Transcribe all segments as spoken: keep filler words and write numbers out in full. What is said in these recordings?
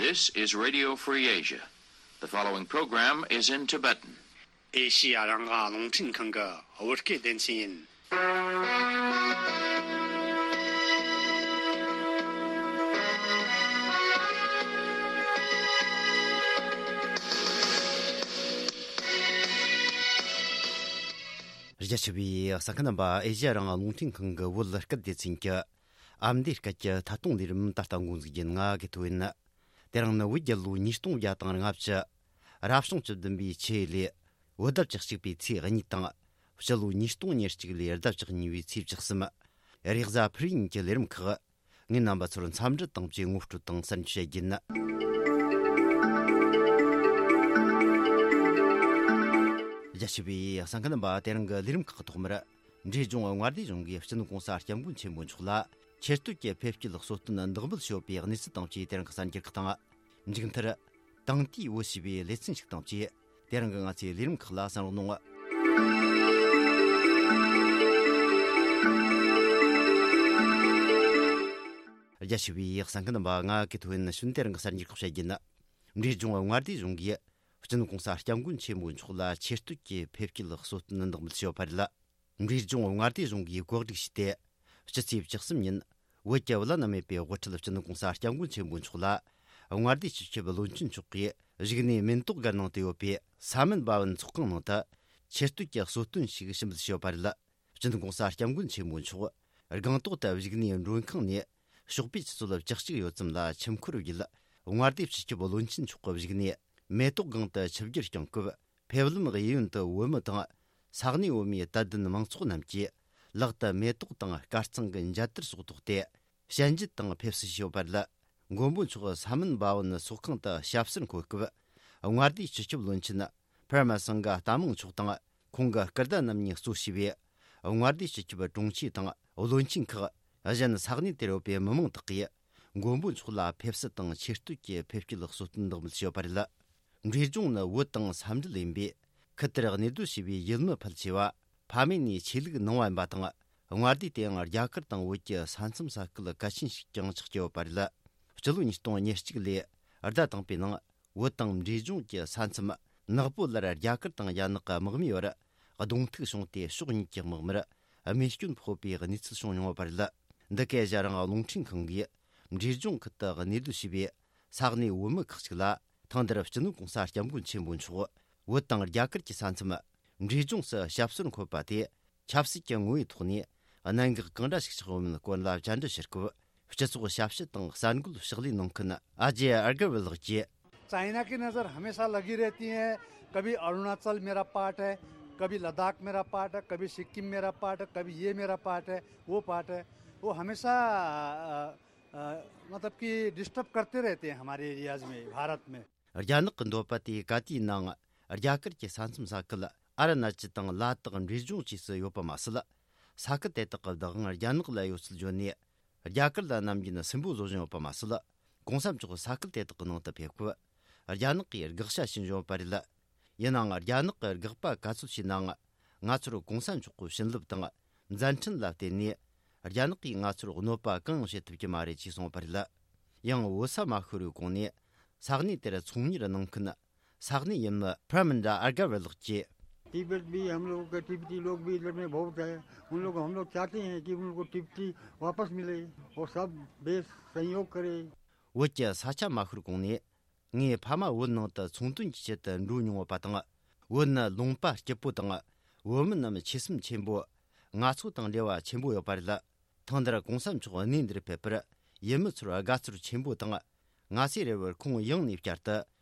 This is Radio Free Asia. The following program is in Tibetan. ཨེ་ཤི་ཡ་རང་དབང་རླུང་འཕྲིན་ཁང་གི་བོད་སྐད་སྡེ་ཚན་ཡིན། རྒྱ་ཆེ་བའི་གསན་མཁན་རྣམ་པ། ཨེ་ཤི་ཡ་རང་དབང་རླུང་འཕྲིན་ཁང་གི་བོད་སྐད་སྡེ་ཚན་གྱི་ཨ་མདོའི་སྐད་ཀྱི་ཐད་གཏོང་ལས་རིམ་ད་ལྟ་འགོ་འཛུགས་རྒྱུ་ཡིན། ང་དགེ་ཐོ་ཡིན། དེ་རིང་ནི་བོད་རྒྱལ་ལོ་ཉིས་སྟོང་བརྒྱ་དང་ལྔ་བཅུ། རབ་བྱུང་བཅུ་བདུན་པའི་ཆུ་ཡོས་ལོའི་བོད་ཟླ་བཅུ་གཅིག་པའི་ཚེས་གཉིས་དང་། སྤྱི་ལོ་ཉིས་སྟོང་ཉེར་གཅིག་ལོའི་ཟླ་བཅུ་གཉིས་པའི་ཚེས་བཅུ་གསུམ། རེས་གཟའ་ཕུར་བུ་ཉིན་གྱི་ལས་རིམ་ཁག་ངས་རྣམ་པ་ཚོར་འཚམས་འདྲི་དང་བཅས་ངོ་སྤྲོད་དང་གསར་འགྱུར་བཤད་རྒྱུ་ཡིན། རྒྱ་ཆེ་བའི་གསན་མཁན་རྣམ་པ། དེ་རིང་གི་ལས་རིམ་ཁག་གི་ཐོག་མར། འབྲས་ལྗོངས་མངའ་སྡེ་གཞུང་གིས་སྤྱི་ནོར་༸གོང་ས་༸སྐྱབས་མགོན་ཆེན་པོ་མཆོག་ལ་ཆེ་བསྟོད་ཀྱི་ཕེབས་སྐྱེལ་གསོལ་སྟོན་འདེགས་འབུལ་ཞུས་པའི་གནས་ཚུལ་དང་བཅས། དེ་རིང་གི་གསར་འགྱུར་ཁག་དང་། མཇུག་མཐར། དེང་དུས་བོད་ཞེས་པའི་ལེ་ཚན་ཞིག་དང་བཅས། དེ་རིང་གི་ང་ཚོའི་ལས་རིམ་ཁག་ལ་གསན་རོགས་གནང་། རྒྱ་ཆེ་བའི་གསན་མཁན་རྣམ་པ། ང་གི་ཐོ་ཡིན་ཞུན། དེ་རིང་གི་གསར་འགྱུར་ཁག་བཤད་རྒྱུ་ཡིན། འབྲས་ལྗོངས་མངའ་སྡེ་གཞུང་གིས་སྤྱི་ནོར་༸གོང་ས་༸སྐྱབས་མགོན་ཆེན་པོ་མཆོག་ལ་ཆེ་བསྟོད་ཀྱི་ཕེབས་སྐྱེལ་གསོལ་སྟོན་འདེགས་འབུལ་ཞུས་པ་རེད། འབྲས་ལྗོངས་མངའ་སྡེ་གཞུང་གིས་གོ་སྒྲིག་བྱས་ཏེ། སྤྱི་ཚེས་བཅུ་གསུམ་ཉིན་བོད་ཀྱི་བླ་ན་མེད་པའི་དབུ་ཁྲིད་སྤྱི་ནོར་༸གོང་ས་༸སྐྱབས་མགོན་ཆེན་པོ་མཆོག་ལ་མངའ་སྡེའི་སྤྱི་ཁྱབ་བློན་ཆེན་མཆོག་གིས་བཞུགས་གནས་མེན་ཏོག་སྒར་ནང་དུ་ཡོད་པའི་ས་མིན་བྷ་ཝན་ཚོགས་ཁང་ནང་དུ་ཆེ་བསྟོད་ཀྱི་གསོལ་སྟོན་ཞིག་ཞུ་འབུལ་ཞུས་པ་རེད། སྤྱི་ནོར་༸གོང་ས་༸སྐྱབས་མགོན་ཆེན་པོ་མཆོག་སྒང་ཏོག་ཏུ་བཞུགས་གནས་མགྲོན་ཁང་ནས་ཞོགས་པའི་ཆུ་ཚོད་བཅུ་གཅིག་ཡོལ་ཙམ་ལ་ཆུ་འཁོར་བརྒྱུད། མངའ་སྡེའི་སྤྱི་ཁྱབ་བློན་ཆེན་མཆོག་གི་བཞུགས་གནས་མེ་ཏོག་སྒང་དུ་ཆིབས་བསྒྱུར་བསྐྱངས་སྐབས། ཕེབས་ལམ་གཡས་གཡོན་དུ་བོད་མི་དང་ས་གནས་བོད་མིའི་དད་ལྡན་མང་ཚོགས་རྣམས་ཀྱིས་ལག་ཏུ་མེ་ཏོག་དང་དཀར་གཙང་གི་མཇལ་དར་སོགས་ཐོགས་ཏེ། ཞལ་མཇལ་དང་ཕེབས་བསུ་ཞུས་པ་རེད། མགོན་པོ་མཆོག་ས་མིན་བྷ་ཝན་ཚོགས་ཁང་དུ་ཞབས་སོར་འཁོད་སྐབས། མངའ་སྡེའི་སྤྱི་ཁྱབ་བློན་ཆེན་པར་མ་སིང་ག་རྟ་མང་མཆོག་དང་། ཁོང་གི་སྐུ་ཟླ་རྣམ་གཉིས་གཙོ་བྱས་པའི་མངའ་སྡེའི་སྤྱི་ཁྱབ་དྲུང་ཆེ་དང་བློན་ཆེན་ཁག་གཞན་ས་གནས་དེར་ཡོད་པའི་མི་མང་དག་གིས་མགོན་པོ་མཆོག་ལ་ཕེབས་བསུ་དང་ཆེ་བསྟོད་ཀྱི་ཕེབས་སྐྱེལ་གསོལ་སྟོན་འདེགས་འབུལ་ཞུས་པ་རེད། འབྲས་ལྗོངས་ནི་བོད་དང་ས་འབྲེལ་ཡིན་པས། ཁུལ་དེར་གནས་སྡོད་བྱས་པའི་ཡུལ་མི་ཕལ་ཆེ་བ་ཕ་མེས་ནས་ཆོས་ལུགས་ནང་བ་ཡིན་པ་དང་། མངའ་སྡེ་དེའང་རྒྱ་གར་དང་བོད་ཀྱི་ས་མཚམས་ས་ཁུལ་གལ་ཆེན་ཞིག་ཀྱང་ཆགས་ཀྱི་ཡོད་པ་རེད། སྤྱི་ལོ་ཉིས་སྟོང་ཉེར་གཅིག་ལོའི་ཟླ་དང་པོའི་ནང་། བོད་དང་འབྲས་ལྗོངས་ཀྱི་ས་མཚམས་ནག་པོ་ལར་རྒྱ་གར་དང་རྒྱ་ནག་གི་དམག་མིའི་བར་གདོང་ཐུག་བྱུང་སྟེ། ཕྱོགས་གཉིས་ཀྱི་དམག་མིར་རྨས་སྐྱོན་ཕོག་པའི་གནས་ཚུལ་བྱུང་མྱོང་བ་རེད། འདི་ག་ཨེ་ཤ་ཡ་རང་དབང་རླུང་འཕྲིན་ཁང་གིས་འབྲས་ལྗོངས་ཁུལ་དུ་གནས་སྡོད་བྱས་པའི་ས་གནས་བོད་མི་ཁག་ཅིག་ལ། ཐེངས་འདིར་སྤྱི་ནོར་༸གོང་ས་༸སྐྱབས་མགོན་ཆེན་པོ་མཆོག་བོད་དང་རྒྱ་གར་གྱི་ས་མཚམས་འབྲས་ལྗོངས་སུ་ཞབས་སོར་འཁོད་པ་དེ། ཆབ་སྲིད་ཀྱི་ངོ་བོའི་ཐོག་ནས་གནད་འགག་གང་འདྲ་ཞིག་ཆགས་ཡོད་མེད་སྐོར་ལ་བཅར་འདྲི་ཞུ་སྐབས། སྤྱི་ཚོགས་ཞབས་ཞུ་དང་གསར་འགོད་ཕྱག་ལས་གནང་མཁན་ཨ་ཇེ་ཨར་གར་ཝལ་ལགས་ཀྱིས། चाइना की नज़र हमेशा लगी रहती है। कभी अरुणाचल मेरा पार्ट है, कभी लद्दाख मेरा पार्ट है, कभी सिक्किम मेरा पार्ट है, कभी ये मेरा पार्ट है, वो पार्ट है। वो हमेशा अ, अ, मतलब कि डिस्टर्ब करते रहते हैं हमारे एरियाज में, भारत में। རྒྱ་ནག་གི་འདོད་པ་དེ་ག་དུས་ནའང་རྒྱ་གར་གྱི་ས་མཚམས་ས་ཁུལ་ཨ་རུ་ན་ཅལ་དང་ལ་དྭགས་འབྲས་ལྗོངས་བཅས་སུ་ཡོད་པ་མ་ཟད། ས་ཁུལ་དེ་དག་གི་བདག་དབང་རྒྱ་ནག་ལ་ཡོད་ཚུལ་བརྗོད་ནས། རྒྱ་གར་ལ་ནམ་རྒྱུན་སུན་པོ་བཟོ་བཞིན་ཡོད་པ་མ་ཟད། གོང་ས་མཆོག་ས་ཁུལ་དེ་དག་གི་ནང་དུ་ཕེབས་སྐབས། རྒྱ་ནག་གིས་དགག་བྱ་བྱིན་བཞིན་ཡོད་པ་རེད། ཡིན་ནའང་། རྒྱ་ནག་གི་དགག་པ་ག་ཚོད་བྱས་ནའང་། ང་ཚོར་གོང་ས་མཆོག་གི་བྱིན་རླབས་དང་། མཛད་འཕྲིན་ལ་བརྟེན་ནས། རྒྱ་ནག་གིས་ང་ཚོར་གནོད་པ་གང་ཡང་བྱེད་ཐུབ་ཀྱི་མ་རེད་ཅེས་གསུངས་པ་རེད། ཡང་། བོད་ས་མ་ཤོར་བའི་གོང་ནས། ས་གནས་དེར་ཚོང་གཉེར་གནང་མཁན་ས་གནས་ཡུལ་མི་པྲ་མིན་དྲ་ཨར་ག་ཝེ་ལགས་ཀྱིས། तिब्बत भी हम लोगों के तिब्बती लोग भी इधर में बहुत है। उन लोग, हम लोग चाहते हैं कि उन लोग को तिब्बती वापस मिले और सब देश सहयोग करे। བོད་ཀྱི་ས་ཆ་མ་ཤོར་གོང་ནས། ངའི་ཕ་མ་བོད་ནང་དུ་ཚོང་དོན་གྱི་ཆེད་དུ་འགྲོ་མྱོང་བ་དང་། བོད་ནི་ལུང་པ་སྐྱིད་པོ་དང་། བོད་མི་རྣམས་ཆོས་སེམས་ཆེན་པོ། ང་ཚོ་དང་འབྲེལ་བ་ཆེན་པོ་ཡོད་པ་རེད། ཐེངས་འདིར་གོང་ས་མཆོག་གནས་འདིར་ཕེབས་པར་ཡུལ་མི་ཚོར་དགའ་ཚོར་ཆེན་པོ་དང་། ང་ཚོའི་རེ་བར་ཁོང་ཡང་ནས་བསྐྱར་དུ་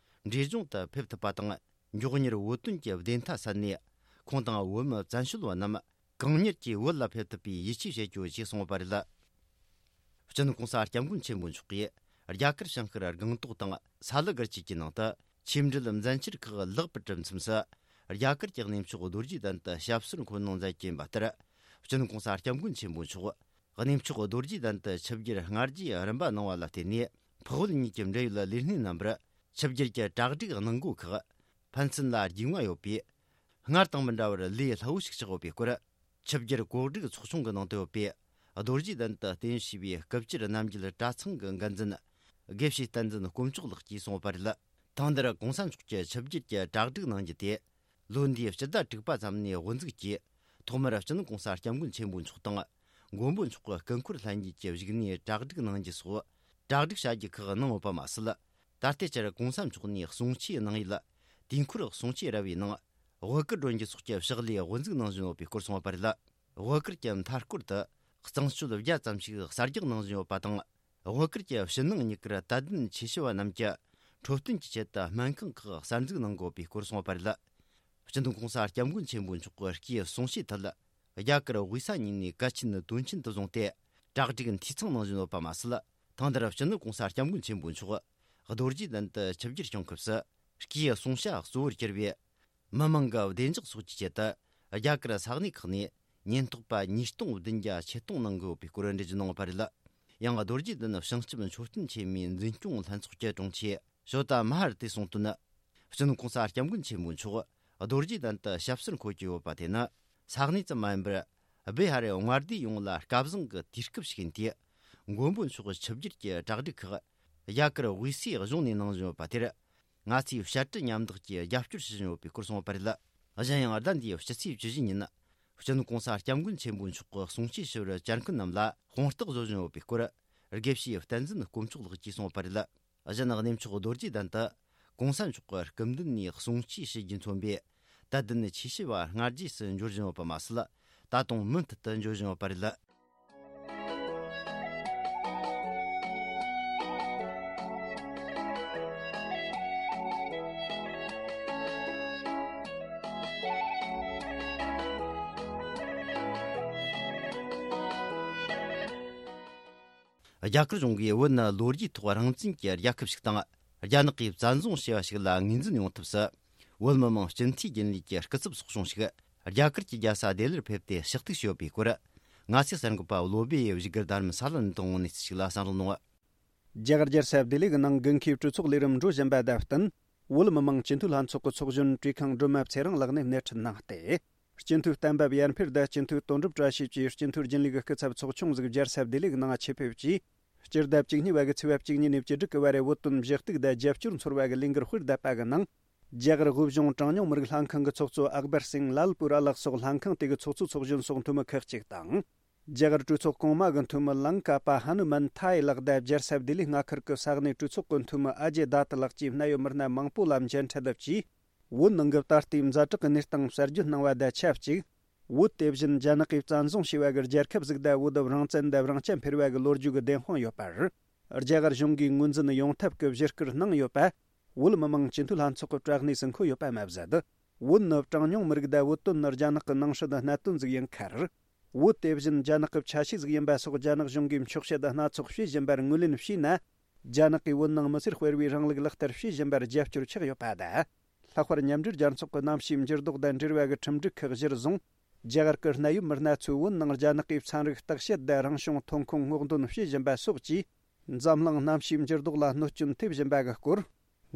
འབྲས་ལྗོངས་དུ་ཕེབས་ཐུབ་པ་དང་། མགྱོགས་མྱུར་བོད་དོན་གྱི་བདེན་མཐའ་གསལ་ནས། ཁོང་དང་བོད་མི་བཙན་བྱོལ་བ་རྣམས་གང་མྱུར་གྱིས་བོད་ལ་ཕེབས་ཐུབ་པའི་ཡིད་ཆེས་བྱེད་རྒྱུ་ཞེས་གསུངས་པ་རེད། སྤྱི་ནོར་གོང་ས་སྐྱབས་མགོན་ཆེན་པོ་མཆོག་གིས་རྒྱ་གར་བྱང་ཤར་སྒང་ཏོག་དང་ས་ལི་སྒར་བཅས་ཀྱི་ནང་དུ་ཆིབས་འགྲུལ་མཛད་འཆར་ཁག་ལེགས་པར་གྲུབ་མཚམས་སུ། རྒྱ་གར་གྱི་གནས་མཆོག་རྡོ་རྗེ་གདན་དུ་ཞབས་སོར་འཁོད་གནང་མཛད་ཀྱིན་པ་ལྟར། སྤྱི་ནོར་གོང་ས་སྐྱབས་མགོན་ཆེན་པོ་མཆོག་གནས་མཆོག་རྡོ་རྗེ་གདན་དུ་ཆིབས་བསྒྱུར་སྔ་རྗེས་རིམ་པ་གནང་བ་ལ་བརྟེན་ནས། འཕགས་བོད་གཉིས་ཀྱི་འབྲེལ་ཡོད་ལས་སྣེ་རྣམ་པར་ཆིབས་བསྒྱུར་གྱི་གྲ་སྒྲིག་གནང་སྒོ་ཁག་ཕན་ཚུན་ལ་རྒྱུས་མངའ་ཡོད་པས། སྔར་དང་མི་འདྲ་བར་ལས་སླ་བོ་ཞིག་ཆགས་ཡོད་པའི་སྐོར། ཆིབས་བསྒྱུར་གོ་སྒྲིག་ཚོགས་ཆུང་གི་ནང་དུ་ཡོད་པའི་རྡོ་རྗེ་གདན་དུ་རྟེན་གཞི་བྱས་པའི་སྐུ་བཅར་རྣམ་རྒྱལ་གྲྭ་ཚང་གི་འགན་འཛིན་ དགེ་བཤེས་བསྟན་འཛིན་དཀོན་མཆོག་ལགས་ཀྱིས་གསུངས་པ་རེད། ཐེངས་འདིར་གོང་ས་མཆོག་གི་ཆིབས་བསྒྱུར་གྱི་གྲ་སྒྲིག་གནང་རྒྱུ་དེ། ལོ་འདིའི་སྤྱི་ཟླ་དྲུག་པ་ཙམ་ནས་དབུ་འཛུགས་ཀྱིས། ཐོག་མར་སྤྱི་ནོར་གོང་ས་སྐྱབས་མགོན་ཆེན་པོ་མཆོག་དང་། མགོན་པོ་མཆོག་གི་སྐུ་འཁོར་ལྷན་རྒྱས་ཀྱི་བཞུགས་གནས་གྲ་སྒྲིག་གནང་རྒྱུ་སོགས། གྲ་སྒྲིག་བྱ་རྒྱུ་ཁག་གནང་ཡོད་པ་མ་ཟད། ད་ལྟའི་ཆར་གོང་ས་མཆོག་ནས་གསུང་ཆོས་གནང་ཡུལ། དུས་འཁོར་གསུང་ཆོས་ར་བའི་ནང་། དབུ་གར་སྒྲོན་རྒྱུ་སོགས་ཀྱི་ཕྱག་ལས་དབུ་འཛུགས་གནང་བཞིན་ཡོད་པའི་སྐོར་གསུངས་པ་རེད། དབུ་གར་གྱི་མཐའ་སྐོར་དུ། གཙང་སྤྱོད་བརྒྱ་ཙམ་ཞིག་གསར་རྒྱག་གནང་བཞིན་ཡོད་པ་དང་། དབུ་གར་གྱི་ཕྱི་ནང་གཉིས་ཀར་དད་ལྡན་ཆོས་ཞུ་བ་རྣམས་ཀྱི་འཕྲོད་བསྟེན་གྱི་ཆེད་དུ་སྨན་ཁང་ཁག་གསར་འཛུགས་གནང་དགོས་པའི་སྐོར་གསུངས་པ་རེད། སྤྱི་ནོར་གོང་ས་སྐྱབས་མགོན་ཆེན་པོ་མཆོག་གི་སྐུའི་གསུང་བཤད་ཐད། རྒྱ་གར་དབུས་ས་གཉིས་ནས་གལ་ཆེན་དོན་ཆེན་དུ་བཟུང་སྟེ། གྲ་སྒྲིག་འཐུས་ཚང་གནང་བཞིན་ཡོད་པ་མ་ཟད། ཐེངས་འདིར་སྤྱི་ནོར་གོང་ས་སྐྱབས་མགོན་ཆེན་པོ་མཆོག་རྡོ་རྗེ་གདན་དུ་ཆིབས་བསྒྱུར་བྱུང་སྐབས་སུ། སྐུའི་གསུང་བཤད་གཙོ་བོར་གྱུར་བའི། མི་མང་གི་བདེ་འཇགས་སོགས་ཀྱི་ཆེད་དུ། རྒྱ་གར་ས་གནས་ཁག་ནས་ཉེན་རྟོག་པ་ཉིས་སྟོང་བདུན་བརྒྱ་ཆེད་གཏོང་གནང་དགོས་པའི་སྐོར་འགྲེལ་བརྗོད་གནང་བ་རེད། ཡང་རྡོ་རྗེ་གདན་བྱང་ཆུབ་མཆོད་རྟེན་ཆེན་མོའི་འཛིན་སྐྱོང་ལྷན་ཚོགས་ཀྱི་དྲུང་ཆེ་ཞོ་ཏ་མ་ཧར་ཏེས་གསུངས་དོན། སྤྱི་ནོར་གོང་ས་སྐྱབས་མགོན་ཆེན་པོ་མཆོག་རྡོ་རྗེ་གདན་དུ་ཞབས་སོར་འཁོད་ཀྱི་ཡོད་པ་དེ་ནི། ས་གནས་ཙམ་མ་ཡིན་པར། བི་ཧ་རའི་མངའ་སྡེ་ཡོངས་ལ་སྐལ་བཟང་གི་དུས་སྐབས་ཤིག་ཡིན་ཏེ། མགོན་པོ་མཆོག་ཆིབས་བསྒྱུར་གྱི་གྲ་སྒྲིག་ཁག་རྒྱ་གར་དབུས་སའི་གཞུང་ནས་གནང་བཞིན་ཡོད་པ་དེར། ང་ཚོས་བཤད་གྲྭ་མཉམ་འདེགས་ཀྱིས་རྒྱབ་སྐྱོར་བྱེད་བཞིན་ཡོད་པའི་སྐོར་གསུངས་པ་རེད། གཞན་ཡང་ཟླ་འདིའི་ཕྱི་ཚེས་བཅུ་བཞི་ཉིན། སྤྱི་ནོར་གོང་ས་སྐྱབས་མགོན་ཆེན་པོ་མཆོག་གི་གསུང་ཆོས་ཞུ་བར་བཅར་མཁན་རྣམས་ལ་དཔང་རྟགས་བཟོ་བཞིན་ཡོད་པའི་སྐོར། དགེ་བཤེས་བསྟན་འཛིན་དཀོན་མཆོག་ལགས་ཀྱིས་གསུངས་པ་རེད། གཞན་གནས་མཆོག་རྡོ་རྗེ་གདན་དུ། གོང་ས་མཆོག་གི་སྐུ་མདུན་ནས་གསུང་ཆོས་ཞུ་རྒྱུས་མཚོན་པའི། དད་ལྡན་ཆོས་ཞུ་བ་སྔ་རྗེས་སུ་འབྱོར་བཞིན་ཡོད་པ་མ་ཟད། ད་དུང་མུ་མཐུད་དུ་འབྱོར་བཞིན་ཡོད་པ་རེད། རྒྱ་གར་གཞུང་གིས་བོད་ནི་ལོ་རྒྱུས་ཐོག་རང་བཙན་གྱི་རྒྱལ་ཁབ་ཞིག་དང་། རྒྱ་ནག་གིས་བཙན་བཟུང་བྱས་པ་ཞིག་ལ་ངོས་འཛིན་ཡོང་ཐབས་སུ། བོད་མི་མང་སྤྱི་འཐུས་རྒྱུན་ལས་ཀྱི་སྐུ་ཚབ་ཚོགས་ཆུང་ཞིག་རྒྱ་གར་གྱི་རྒྱལ་ས་ལྡི་ལིར་ཕེབས་ཏེ་ཞུ་གཏུག་བྱས་ཡོད་པའི་སྐོར། ང་ཚོའི་གསར་འགོད་པ་བློ་བྷེ་ཡིས་བཞུགས་སྒར་རྡ་རམ་ས་ལར་འདོན་གནས་ཚུལ་ཞིག་ལ་གསན་རོགས་གནང་། རྒྱ་གར་རྒྱལ་ས་ལྡི་ལི་གི་ནང་དགུན་ཁའི་གྲོས་ཚོགས་ལས་རིམ་འགྲོ་བཞིན་པ་དང་བསྟུན། བོད་མི་མང་སྤྱི་འཐུས་ལྷན་ཚོགས་ཀྱི་ཚོགས་གཞོན་བཀྲས་ཁང་སྒྲོལ་མ་ཚེ་རིང་ལགས་ནས་སྣེ་ཁྲིད་གནང་སྟེ། སྤྱི་འཐུས་གཏན་འབེབས་ཡར་འཕེལ་དང་སྤྱི་འཐུས་དོན་གྲུབ་བཀྲ་ཤིས་བཅས་སྤྱི་འཐུས་རྒྱུན་ལས་ཀྱི་སྐུ་ཚབ་ཚོགས་ཆུང་ཟིག་རྒྱལ་ས་ལྡི་ལི་གི་ནང་ཆེད་ཕེབས་ཀྱིས། སྤྱི་ཟླ་བཅུ་གཉིས་པ་གི་ཚེས་པ་བཅུ་གཉིས་ནས་བཅུ་དྲུག་གི་བར་བོད་དོན་བཞི་གཏུག་དང་རྒྱབ་སྐྱོར་ཚོར་བ་གི་ལས་འགུལ་སྤེལ་བསྡད་པ་གི་ནང་། རྒྱ་གར་དབུས་གཞུང་གྲངས་ཉུང་མི་རིགས་ལྷན་ཁང་གི་ཚོགས་གཙོ་ཨག་བར་སིང་ལལ་པུ་ར་ལགས་སོགས་ལྷན་ཁང་དེ་གི་ཚོགས་གཙོའི་ཚོགས་གཞོན་སོགས་འཐུས་མི་ཁག་ཅིག་དང་། རྒྱ་གར་གྲོས་ཚོགས་གོང་མ་གི་འཐུས་མི་ལང་ཀ་པ་ཧ་ནུ་མན་ཐའེ་ལགས་དང་རྒྱལ་ས་ལྡི་ལི་མངའ་ཁུལ་གྱི་ས་གནས་གྲོས་ཚོགས་ཀྱི་འཐུས་མི་ཨ་ཇེ་དཱ་ཏི་ལགས་བཅས་གནད་ཡོད་མི་སྣ་མང་པོ་ལ་མཇལ་འཕྲད་ལབ་ཀྱིས། བོད་ནང་གི་ད་ལྟའི་ཛ་དྲག་གི་གནས་སྟངས་གསར་བརྗོད་གནང་བ་དང་ཆབས་ཅིག་བོད་དེ་བཞིན་རྒྱ་ནག་གིས་བཙན་བཟུང་བྱས་པ་གི་རྒྱལ་ཁབ་ཟིག་དང་བོད་དུ་རང་བཙན་དང་དབང་ཆ་འཕེར་བ་གི་ལོ་རྒྱུས་ཀྱི་བདེན་དཔང་ཡོད་པར། རྒྱ་གར་གཞུང་གིས་ངོས་འཛིན་ཡོང་ཐབས་ཀྱི་བཞེད་དཀར་གནང་ཡོད་པ། བོད་མི་མང་སྤྱི་འཐུས་ལྷན་ཚོགས་ཀྱི་བཀྲག་གནས་སུ་འཁོད་ཡོད་པ་མ་ཟད། བོད་ནི་གྲངས་ཉུང་མི་རིགས་དང་བོད་དོན་ནི་རྒྱ་ནག་གི་ནང་སྲིད་གནད་དོན་ཟིག་ཡིན་ཁར། བོད་དེ་བཞིན་རྒྱ་ནག་གི་ཆ་ཤས་ཟིག་ཡིན་པ་སོགས་རྒྱ་ནག་གཞུང་གིས་འཁྱོག་བཤད་སྣ་ཚོགས་བྱེད་བཞིན་པར་ངོས་ལེན་བྱས་ན། རྒྱ་ནག་གིས་བོད་ནང་མི་སེར་སྤེལ་བའི་རིང་ལུགས་ལག་བསྟར་བྱེད་བཞིན་པར་རྒྱབ་སྐྱོར་ཆགས་ཡོད་པ་དང་། ལྷག་པར་མཉམ་འབྲེལ་རྒྱལ་ཚོགས་ཀྱི་གནམ་གཤིས་འགྱུར་ལྡོག་དང་འབྲེལ་བ་གི་ཁྲིམས་སྒྲིག་ཁག་གཞིར་བཟུང་། རྒྱ་གར་གྱི་གནད་ཡོད་མི་སྣ་ཚོས་བོད་ནང་རྒྱ་ནག་གིས་ཚན་རིག་བརྟག་དཔྱད་དང་རང་བྱུང་ཐོན་ཁུངས་སྔོག་འདོན་བྱེད་བཞིན་པ་སོགས་ཀྱིས། འཛམ་གླིང་གནམ་གཤིས་འགྱུར་ལྡོག་ལ་གནོད་སྐྱོན་ཐེབས་བཞིན་པ་གི་སྐོར།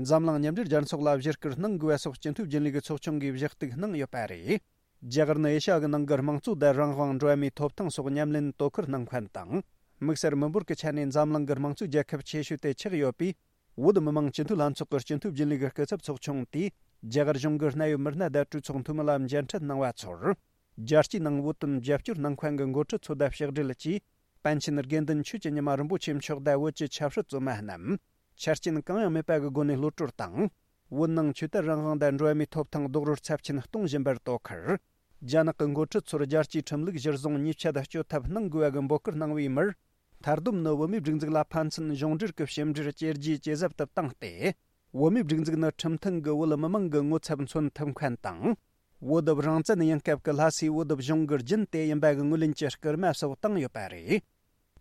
འཛམ་གླིང་མཉམ་འབྲེལ་རྒྱལ་ཚོགས་ལ་བཞེད་དཀར་གནང་དགོས་པ་སོགས་སྤྱི་འཐུས་རྒྱུན་ལས་ཀྱི་ཚོགས་ཆུང་གིས་བཞེད་གཏུག་གནང་ཡོད་པ་རེད། རྒྱ་གར་ནི་ཨེ་ཤ་ཡ་གི་ནང་གི་དམངས་གཙོ་དང་རང་དབང་འགྲོ་བ་མིའི་ཐོབ་ཐང་སོགས་ཉམས་ལེན་དོ་ཁུར་གནང་མཁན་དང་། དམིགས་བསལ་མི་འབོར་གྱི་ཆ་ནས་འཛམ་གླིང་གི་དམངས་གཙོའི་རྒྱལ་ཁབ་ཆེ་ཤོས་དེ་ཆགས་ཡོད་པས། བོད་མི་མང་སྤྱི་འཐུས་ལྷན་ཚོགས་ཀྱི་སྤྱི་འཐུས་རྒྱུན་ལས་ཀྱི་སྐུ་ཚབ་ཚོགས་ཆུང་དེས། རྒྱ་གར་གཞུང་གི་གནད་ཡོད་མི་སྣ་དང་གྲོས་ཚོགས་འཐུས་མི་ལ་མཇལ་འཕྲད་གནང་བ་ཚོར། རྒྱལ་སྤྱིའི་ནང་བོད་དོན་རྒྱབ་སྐྱོར་གནང་མཁན་གྱི་འགོ་ཁྲིད་ཚོ་དང་ཕྱག་སྦྲེལ་གྱིས། པཎ་ཆེན་དགེ་འདུན་ཆོས་ཀྱི་ཉི་མ་རིན་པོ་ཆེ་མཆོག་དང་བོད་ཀྱི་ཆབ་སྲིད་བཙོན་མ་རྣམས། ཆ་རྐྱེན་གང་ཡང་མེད་པ་གི་སྒོ་ནས་གློད་གྲོལ་དང་། བོད་ནང་ཆོས་དད་རང་དབང་དང་འགྲོ་བ་མིའི་ཐོབ་ཐང་རྡོག་རོལ་ཚབས་ཆེན་གཏོང་བཞིན་པར་དོ་ཁུར། རྒྱ་ནག་གི་འགོ་ཁྲིད་ཚོར་རྒྱལ་སྤྱིའི་ཁྲིམས་ལུགས་གཞིར་བཟུང་ཉེས་ཆད་གཅོད་ཐབས་གནང་དགོས་པ་གི་འབོད་སྐུལ་གནང་བའི་མིར། མཐར་སྡོམ་ནི་བོད་མིའི་སྒྲིག་འཛུགས་ལ་ཕན་ཚུན་གཞུང་འབྲེལ་གྱི་ཕྱི་འབྲེལ་བཅོས་རྒྱུའི་ཇེ་ཟབ་ཏུ་བཏང་སྟེ། བོད་མིའི་སྒྲིག་འཛུགས་ནི་ཁྲིམས་མཐུན་གྱི་བོད་མི་མང་གི་ངོ་ཚབ་མཚོན་ཐུབ་མཁན་དང་། བོད་དུ་རང་བཙན་ཡིན་སྐབས་ཀྱི་ལྷ་སའི་བོད་དུ་གཞུང་གི་རྒྱུན་དེ་ཡིན་པ་གི་ངོས་ལེན་གྱི་སྐུལ་མ་སོགས་བཏང་ཡོད་པ་རེད།